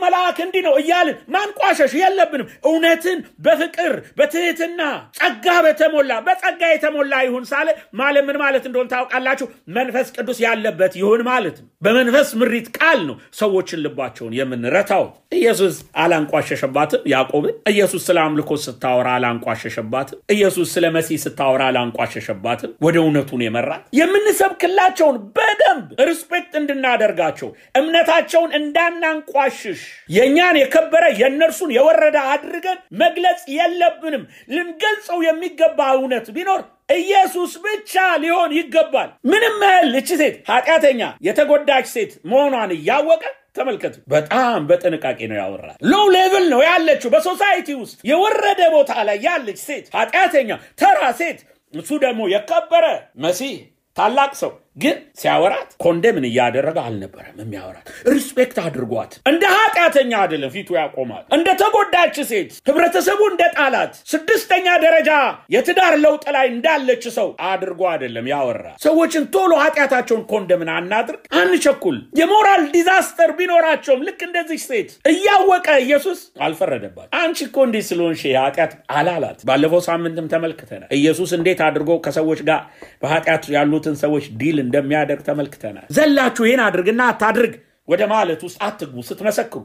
መልአክ እንዲህ ነው እያልን ማንቋሸሽ የለብንም። እውነትን በፍቅር በትህትና ጸጋ በተሞላ በጸጋ የተሞላ ይሁን ሳለ ማለት ምን ማለት እንደሆነ ታውቃላችሁ? መንፈስ ቅዱስ ያለበት ይሁን ማለት ነው። በመንፈስ ምሪት ቃል ነው ሰዎችን ልባቸውን የምንረታው። ኢየሱስ አላንቋሸሸባትም ያዕቆብን። ኢየሱስ ስለ አምልኮ ስታወራ አላንቋሸሸባትም። ኢየሱስ ስለ መሲህ ስታወራ አላንቋሸሸባትም። ወደ እውነቱን የመራት የምንሰብክላቸውን በደንብ ሪስፔክት እንድናደርጋቸው እምነታቸውን እንዳናንቋሽሽ የኛን የከበረ የነርሱን የወረደ አድርገን መግለጽ የለብንም። ልንገልጸው የሚገባ እውነት ቢኖር ኢየሱስ ብቻ ሊሆን ይገባል። ምንም ያህል እቺ ሴት ኃጢአተኛ የተጎዳች ሴት መሆኗን ያወቀ ተመልከቱ በጣም በጥንቃቄ ነው ያወራል። ሎው ሌቭል ነው ያለችው በሶሳይቲ ውስጥ የወረደ ቦታ ላይ ያለች ሴት ኃጢአተኛ ተራ ሴት እሱ ደግሞ የከበረ መሲህ ታላቅ ሰው ግን ሲያወራት ኮንደምን ያደረገ አልነበረም የሚያወራት። ሪስፔክት አድርጓት እንደ ኃጢአተኛ አይደለም ፊቱ ያቆማል። እንደ ተጎዳች ሴት ህብረተሰቡ እንደ ጣላት 6ኛ ደረጃ የትዳር ለውጥ ላይ እንዳለች ሰው አድርጎ አይደለም ያወራ። ሰዎችን ቶሎ ኃጢአታቸውን ኮንደምን አናድርግ አንቸኩል። የሞራል ዲዛስተር ቢኖራቸውም ልክ እንደዚህ ሴት እያወቀ ኢየሱስ አልፈረደባት። አንቺ እኮ እንዲህ ስለሆንሽ ኃጢአት አላላት። ባለፈው ሳምንትም ተመልክተናል ኢየሱስ እንዴት አድርጎ ከሰዎች ጋር በኃጢአት ያሉትን ሰዎች ዲል እንደሚያደርግ ተመልክተናል። ዘላችሁ ይሄን አድርግና አታድርግ ወደ ማለት ውስጥ አትግቡ ስትመሰክሩ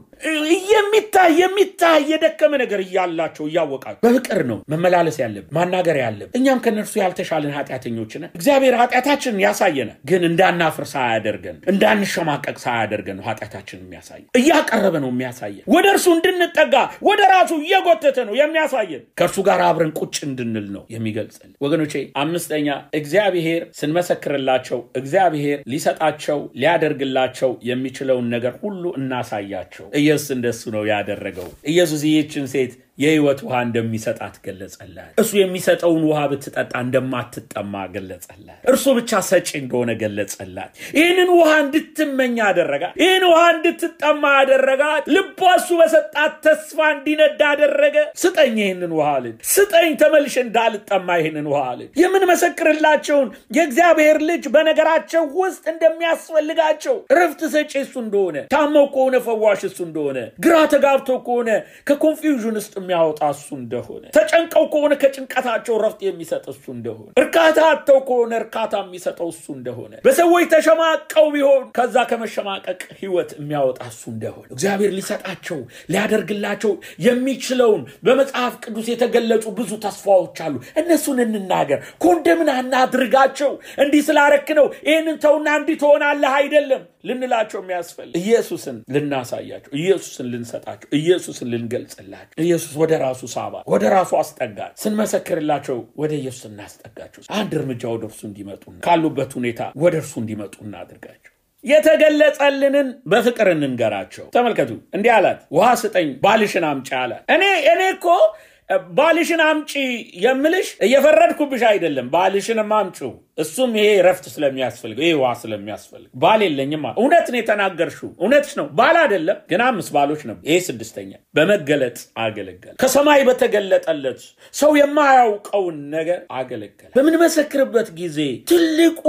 የሚታይ የደከመ ነገር እያላቸው እያወቃችሁ በፍቅር ነው መመላለስ ያለብን ማናገር ያለብን። እኛም ከነርሱ ያልተሻለን ኃጢአተኞች ነን። እግዚአብሔር ኃጢአታችንን ያሳየናል ግን እንዳናፍር ሳያደርገን እንዳንሸማቀቅ ሳያደርገን ነው ኃጢአታችንን የሚያሳየን። እያቀረበ ነው የሚያሳየን። ወደ እርሱ እንድንጠጋ ወደ ራሱ እየጎተተ ነው የሚያሳየን። ከእርሱ ጋር አብረን ቁጭ እንድንል ነው የሚገልጽልን። ወገኖቼ 5ኛ እግዚአብሔር ስንመሰክርላቸው እግዚአብሔር ሊሰጣቸው ሊያደርግላቸው የሚችለው ነገር ሁሉ እናሳያቸው። ኢየሱስ እንደሱ ነው ያደረገው። ኢየሱስ ይህችን ሴት የህይወት ውሃ እንደሚሰጣት ገለጸላት። እሱ የሚሰጠውን ውሃ ብትጠጣ እንደማትጠማ ገለጸላት። እርሱ ብቻ ሰጪ እንደሆነ ገለጸላት። ይህንን ውሃ እንድትመኝ አደረጋት። ይህን ውሃ እንድትጠማ አደረጋት። ልቧ እሱ በሰጣት ተስፋ እንዲነድ አደረገ። ስጠኝ ይህንን ውሃ አለች። ስጠኝ ተመልሼ እንዳልጠማ ይህንን ውሃ አለች። የምንመሰክርላቸውን የእግዚአብሔር ልጅ በነገራቸው ውስጥ እንደሚያስፈልጋቸው ረፍት ሰጪ እሱ እንደሆነ ታመው ከሆነ ፈዋሽ እሱ እንደሆነ ግራ ተጋብቶ ከሆነ ከኮንፊውዥን ውስጥ የሚያወጣ እሱ እንደሆነ ተጨንቀው ከሆነ ከጭንቀታቸው ረፍት የሚሰጥ እሱ እንደሆነ እርካታ አጥተው ከሆነ እርካታ የሚሰጠው እሱ እንደሆነ በሰዎች ተሸማቀው ቢሆን ከዛ ከመሸማቀቅ ህይወት የሚያወጣ እሱ እንደሆነ እግዚአብሔር ሊሰጣቸው ሊያደርግላቸው የሚችለውን በመጽሐፍ ቅዱስ የተገለጹ ብዙ ተስፋዎች አሉ። እነሱን እንናገር። ኮንደምን አናድርጋቸው። እንዲህ ስላረክ ነው ይሄንን ተውና እንዲህ ትሆናለህ አይደለም ልንላቸው የሚያስፈልግ ኢየሱስን ልናሳያቸው፣ ኢየሱስን ልንሰጣቸው፣ ኢየሱስን ልንገልጽላቸው። ኢየሱስ ወደ ራሱ ሳባ ወደ ራሱ አስጠጋቸው። ስንመሰክርላቸው ወደ ኢየሱስ እናስጠጋቸው። አንድ እርምጃ ወደ እርሱ እንዲመጡ ካሉበት ሁኔታ ወደ እርሱ እንዲመጡ እናድርጋቸው። የተገለጸልንን በፍቅር እንንገራቸው። ተመልከቱ፣ እንዲህ አላት፣ ውሃ ስጠኝ ባልሽን አምጪ አላት። እኔ እኮ ባልሽን አምጪ የምልሽ እየፈረድኩብሽ አይደለም። ባልሽን አምጪው እሱም ይሄ ረፍት ስለሚያስፈልገው ይሄ ዋ ስለሚያስፈልግ ባል የለኝም። እውነት ነው የተናገርሽው፣ እውነትሽ ነው። ባል አይደለም ግን 5 ባሎች ነበር። ይሄ 6ኛ በመገለጥ አገለገለ። ከሰማይ በተገለጠለት ሰው የማያውቀውን ነገር አገለገለ። በምንመሰክርበት ጊዜ ትልቁ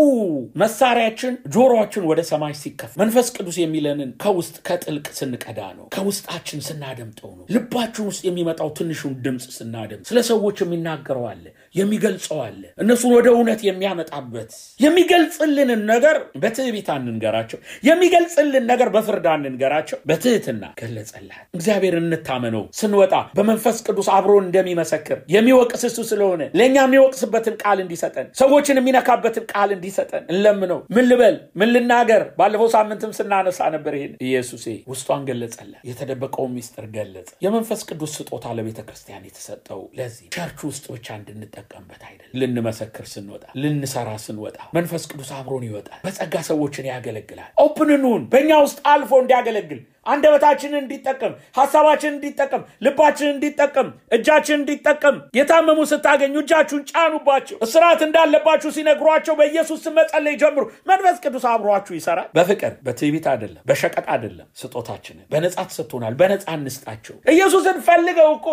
መሳሪያችን ጆሮአችን ወደ ሰማይ ሲከፈት መንፈስ ቅዱስ የሚለንን ከውስጥ ከጥልቅ ስንቀዳ ነው። ከውስጣችን ስናደምጠው ነው። ልባችን ውስጥ የሚመጣው ትንሹን ድምጽ ስናደምጥ ስለ ሰዎች የሚናገረው አለ፣ የሚገልጸው አለ። እነሱን ወደ እውነት የሚያመጣበት የሚገልጽልንን ነገር በትዕቢት አንንገራቸው፣ የሚገልጽልን ነገር በፍርድ አንንገራቸው። በትህትና ገለጸላት። እግዚአብሔር እንታመነው። ስንወጣ በመንፈስ ቅዱስ አብሮ እንደሚመሰክር የሚወቅስ እሱ ስለሆነ ለኛ የሚወቅስበትን ቃል እንዲሰጠን፣ ሰዎችን የሚነካበትን ቃል እንዲሰጠን እንለምነው። ምን ልበል ምን ልናገር? ባለፈው ሳምንትም ስናነሳ ነበር ይሄን። ኢየሱስ ውስጧን ገለጸላት። የተደበቀው ሚስጥር ገለጸ። የመንፈስ ቅዱስ ስጦታ ለቤተክርስቲያን የተሰጠው ለዚህ ቸርች ውስጥ ብቻ እንድንጠቀምበት አይደለም። ልንመሰክር ስንወጣ ልንሰራ ስንወጣ መንፈስ ቅዱስ አብሮን ይወጣል። በጸጋ ሰዎችን ያገለግላል። ኦፕንኑን በእኛ ውስጥ አልፎ እንዲያገለግል፣ አንደበታችንን እንዲጠቀም፣ ሐሳባችንን እንዲጠቀም፣ ልባችንን እንዲጠቀም፣ እጃችንን እንዲጠቀም። የታመሙ ስታገኙ እጃችሁን ጫኑባቸው። እስራት እንዳለባችሁ ሲነግሯቸው በኢየሱስ ስም መጸለይ ጀምሩ። መንፈስ ቅዱስ አብሯችሁ ይሰራል። በፍቅር በትዕቢት አይደለም፣ በሸቀጥ አይደለም። ስጦታችንን በነጻ ተሰጥቶናል። በነጻ እንስጣቸው። ኢየሱስን ፈልገው እኮ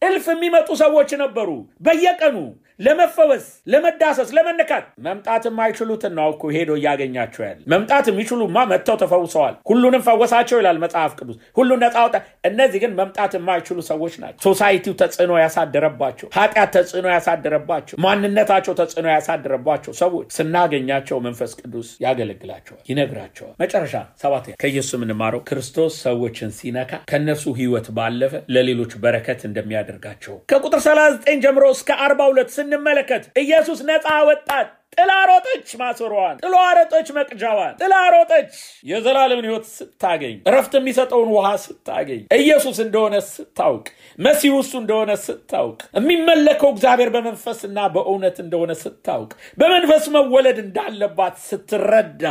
እልፍ የሚመጡ ሰዎች ነበሩ። በየቀኑ ለመፈወስ፣ ለመዳሰስ፣ ለመነካት መምጣት የማይችሉትን ነው እኮ ሄዶ ያገኛቸው ያለ። መምጣት የሚችሉማ መጥተው ተፈውሰዋል። ሁሉንም ፈወሳቸው ይላል መጽሐፍ ቅዱስ። ሁሉን ነፃ አወጣ። እነዚህ ግን መምጣት የማይችሉ ሰዎች ናቸው። ሶሳይቲው ተጽዕኖ ያሳደረባቸው፣ ኃጢአት ተጽዕኖ ያሳደረባቸው፣ ማንነታቸው ተጽዕኖ ያሳደረባቸው ሰዎች ስናገኛቸው መንፈስ ቅዱስ ያገለግላቸዋል፣ ይነግራቸዋል። መጨረሻ 7 ከኢየሱስ የምንማረው ክርስቶስ ሰዎችን ሲነካ ከነሱ ህይወት ባለፈ ለሌሎች በረከት እንደሚያደርጋቸው ከቁጥር 39 ጀምሮ እስከ 42 ስንመለከት ኢየሱስ ነፃ ወጣት። ጥላ ሮጠች ማሰሯን፣ ጥላ ሮጠች መቅጃዋን፣ ጥላ ሮጠች የዘላለምን ህይወት ስታገኝ፣ ረፍት የሚሰጠውን ውሃ ስታገኝ፣ ኢየሱስ እንደሆነ ስታውቅ፣ መሲሁ እሱ እንደሆነ ስታውቅ፣ የሚመለከው እግዚአብሔር በመንፈስና በእውነት እንደሆነ ስታውቅ፣ በመንፈስ መወለድ እንዳለባት ስትረዳ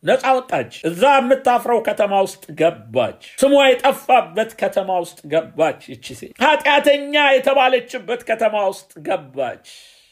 ነፃ ወጣች። እዛ የምታፍረው ከተማ ውስጥ ገባች። ስሟ የጠፋበት ከተማ ውስጥ ገባች። እቺ ሴት ኃጢአተኛ የተባለችበት ከተማ ውስጥ ገባች።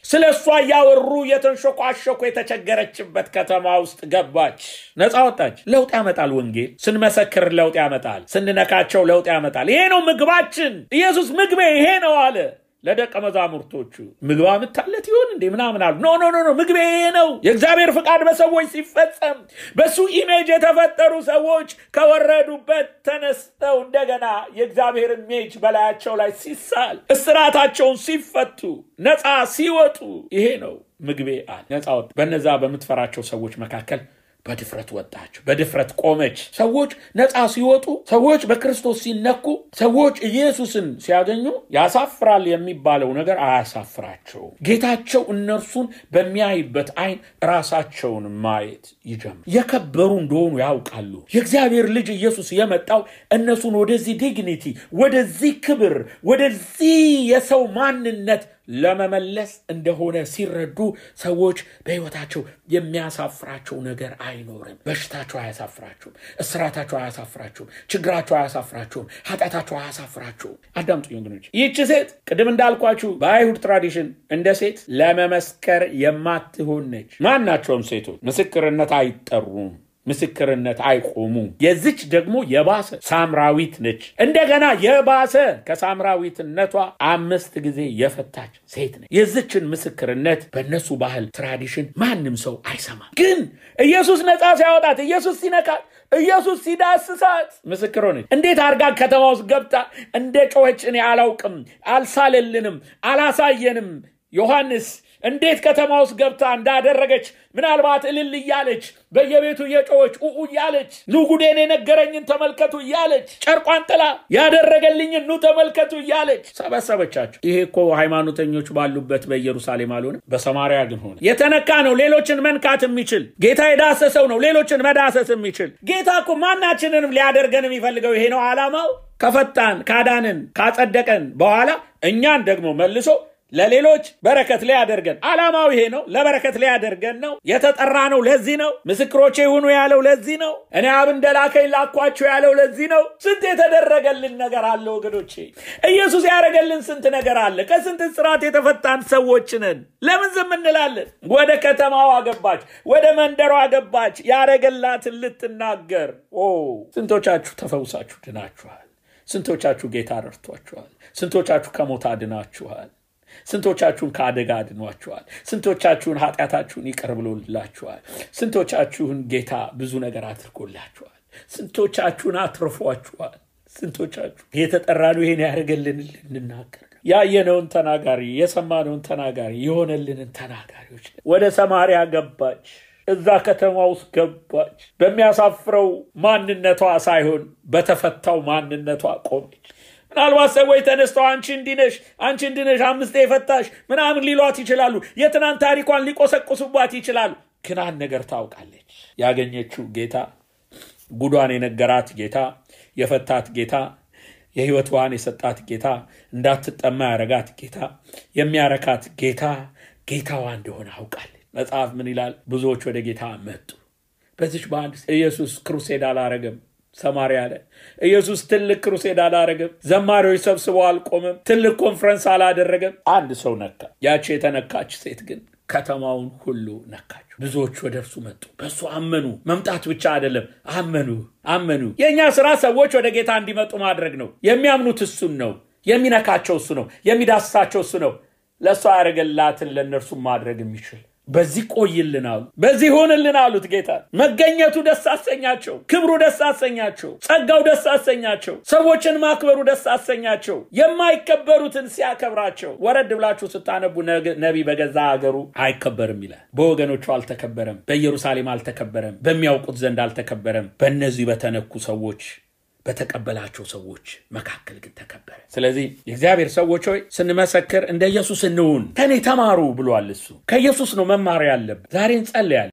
ስለሷ ያወሩ የተንሾኳሾኩ የተቸገረችበት ከተማ ውስጥ ገባች። ነፃ ወጣች። ለውጥ ያመጣል። ወንጌል ስንመሰክር ለውጥ ያመጣል። ስንነካቸው ለውጥ ያመጣል። ይሄ ነው ምግባችን። ኢየሱስ ምግቤ ይሄ ነው አለ ለደቀ መዛሙርቶቹ። ምግባ ምታለት ይሆን እንዴ ምናምን አሉ። ኖ ምግቤ ይሄ ነው። የእግዚአብሔር ፍቃድ በሰዎች ሲፈጸም በሱ ኢሜጅ የተፈጠሩ ሰዎች ከወረዱበት ተነስተው እንደገና የእግዚአብሔር ኢሜጅ በላያቸው ላይ ሲሳል፣ እስራታቸውን ሲፈቱ፣ ነፃ ሲወጡ ይሄ ነው ምግቤ አለ። ነፃ ወጥ በነዛ በምትፈራቸው ሰዎች መካከል በድፍረት ወጣች፣ በድፍረት ቆመች። ሰዎች ነፃ ሲወጡ፣ ሰዎች በክርስቶስ ሲነኩ፣ ሰዎች ኢየሱስን ሲያገኙ ያሳፍራል የሚባለው ነገር አያሳፍራቸው። ጌታቸው እነርሱን በሚያይበት አይን ራሳቸውን ማየት ይጀምራል። የከበሩ እንደሆኑ ያውቃሉ። የእግዚአብሔር ልጅ ኢየሱስ የመጣው እነሱን ወደዚህ ዲግኒቲ፣ ወደዚህ ክብር፣ ወደዚህ የሰው ማንነት ለመመለስ እንደሆነ ሲረዱ ሰዎች በህይወታቸው የሚያሳፍራቸው ነገር አይኖርም። በሽታቸው አያሳፍራቸውም፣ እስራታቸው አያሳፍራቸውም፣ ችግራቸው አያሳፍራቸውም፣ ኃጢአታቸው አያሳፍራቸውም። አዳምጡኝ ወገኖች። ይህች ሴት ቅድም እንዳልኳችሁ በአይሁድ ትራዲሽን እንደ ሴት ለመመስከር የማትሆን ነች። ማናቸውም ሴቶች ምስክርነት አይጠሩም፣ ምስክርነት አይቆሙም። የዚች ደግሞ የባሰ ሳምራዊት ነች። እንደገና የባሰ ከሳምራዊትነቷ 5 ጊዜ የፈታች ሴት ነች። የዚችን ምስክርነት በእነሱ ባህል ትራዲሽን ማንም ሰው አይሰማም። ግን ኢየሱስ ነፃ ሲያወጣት፣ ኢየሱስ ሲነካት ኢየሱስ ሲዳስሳት ምስክር ሆነች። እንዴት አርጋ ከተማ ውስጥ ገብታ እንደ ጮኸች እኔ አላውቅም፣ አልሳለልንም፣ አላሳየንም። ዮሐንስ እንዴት ከተማ ውስጥ ገብታ እንዳደረገች ምናልባት እልል እያለች በየቤቱ እየጮኸች እያለች ኑ ጉዴን የነገረኝን ተመልከቱ እያለች ጨርቋን ጥላ ያደረገልኝን ኑ ተመልከቱ እያለች ሰበሰበቻቸው። ይሄ እኮ ሃይማኖተኞች ባሉበት በኢየሩሳሌም አልሆነም፣ በሰማርያ ግን ሆነ። የተነካ ነው ሌሎችን መንካት የሚችል ጌታ፣ የዳሰሰው ነው ሌሎችን መዳሰስ የሚችል ጌታ እኮ ማናችንንም ሊያደርገን የሚፈልገው ይሄ ነው ዓላማው። ከፈታን ካዳንን ካጸደቀን በኋላ እኛን ደግሞ መልሶ ለሌሎች በረከት ላይ ያደርገን። ዓላማው ይሄ ነው፣ ለበረከት ላይ ያደርገን ነው። የተጠራ ነው ለዚህ ነው። ምስክሮቼ ይሁኑ ያለው ለዚህ ነው። እኔ አብ እንደላከኝ ላኳችሁ ያለው ለዚህ ነው። ስንት የተደረገልን ነገር አለ ወገኖቼ። ኢየሱስ ያደረገልን ስንት ነገር አለ። ከስንት ስራት የተፈታን ሰዎች ነን። ለምን ዝም እንላለን? ወደ ከተማዋ ገባች፣ ወደ መንደሯ ገባች ያደረገላትን ልትናገር። ስንቶቻችሁ ተፈውሳችሁ ድናችኋል? ስንቶቻችሁ ጌታ ረድቷችኋል? ስንቶቻችሁ ከሞት አድናችኋል? ስንቶቻችሁን ከአደጋ አድኗችኋል? ስንቶቻችሁን ኃጢአታችሁን ይቅር ብሎላችኋል? ስንቶቻችሁን ጌታ ብዙ ነገር አድርጎላችኋል? ስንቶቻችሁን አትርፏችኋል? ስንቶቻችሁ የተጠራነው ይሄን ያደረገልን ልንናገር፣ ያየነውን ተናጋሪ፣ የሰማነውን ተናጋሪ፣ የሆነልንን ተናጋሪዎች። ወደ ሰማርያ ገባች፣ እዛ ከተማ ውስጥ ገባች። በሚያሳፍረው ማንነቷ ሳይሆን በተፈታው ማንነቷ ቆመች። ምናልባት ሰዎች ተነስተው አንቺ እንዲነሽ 5 የፈታሽ ምናምን ሊሏት ይችላሉ። የትናንት ታሪኳን ሊቆሰቁሱባት ይችላሉ። ግን አንድ ነገር ታውቃለች። ያገኘችው ጌታ፣ ጉዷን የነገራት ጌታ፣ የፈታት ጌታ፣ የህይወት ውሃን የሰጣት ጌታ፣ እንዳትጠማ ያረጋት ጌታ፣ የሚያረካት ጌታ ጌታዋ እንደሆነ አውቃለች። መጽሐፍ ምን ይላል? ብዙዎች ወደ ጌታ መጡ። በዚህ በአንድ ኢየሱስ ክሩሴድ አላረገም። ሰማርያ ላይ ኢየሱስ ትልቅ ክሩሴድ አላረገም። ዘማሪዎች ሰብስበው አልቆመም። ትልቅ ኮንፈረንስ አላደረገም። አንድ ሰው ነካ። ያቺ የተነካች ሴት ግን ከተማውን ሁሉ ነካች። ብዙዎች ወደ እርሱ መጡ፣ በሱ አመኑ። መምጣት ብቻ አይደለም፣ አመኑ። የኛ ስራ ሰዎች ወደ ጌታ እንዲመጡ ማድረግ ነው። የሚያምኑት እሱን ነው። የሚነካቸው እሱ ነው። የሚዳስሳቸው እሱ ነው። ለሷ ያደረገላትን ለነርሱ ማድረግ የሚችል በዚህ ቆይልን አሉ፣ በዚህ ሆንልን አሉት። ጌታ መገኘቱ ደስ አሰኛቸው፣ ክብሩ ደስ አሰኛቸው፣ ጸጋው ደስ አሰኛቸው፣ ሰዎችን ማክበሩ ደስ አሰኛቸው። የማይከበሩትን ሲያከብራቸው። ወረድ ብላችሁ ስታነቡ ነቢይ በገዛ ሀገሩ አይከበርም ይላል። በወገኖቹ አልተከበረም፣ በኢየሩሳሌም አልተከበረም፣ በሚያውቁት ዘንድ አልተከበረም። በእነዚህ በተነኩ ሰዎች በተቀበላቸው ሰዎች መካከል ግን ተከበረ። ስለዚህ የእግዚአብሔር ሰዎች ሆይ ስንመሰክር እንደ ኢየሱስ እንሁን። ከኔ ተማሩ ብሏል እሱ። ከኢየሱስ ነው መማር ያለብን። ዛሬ እንጸልያለን።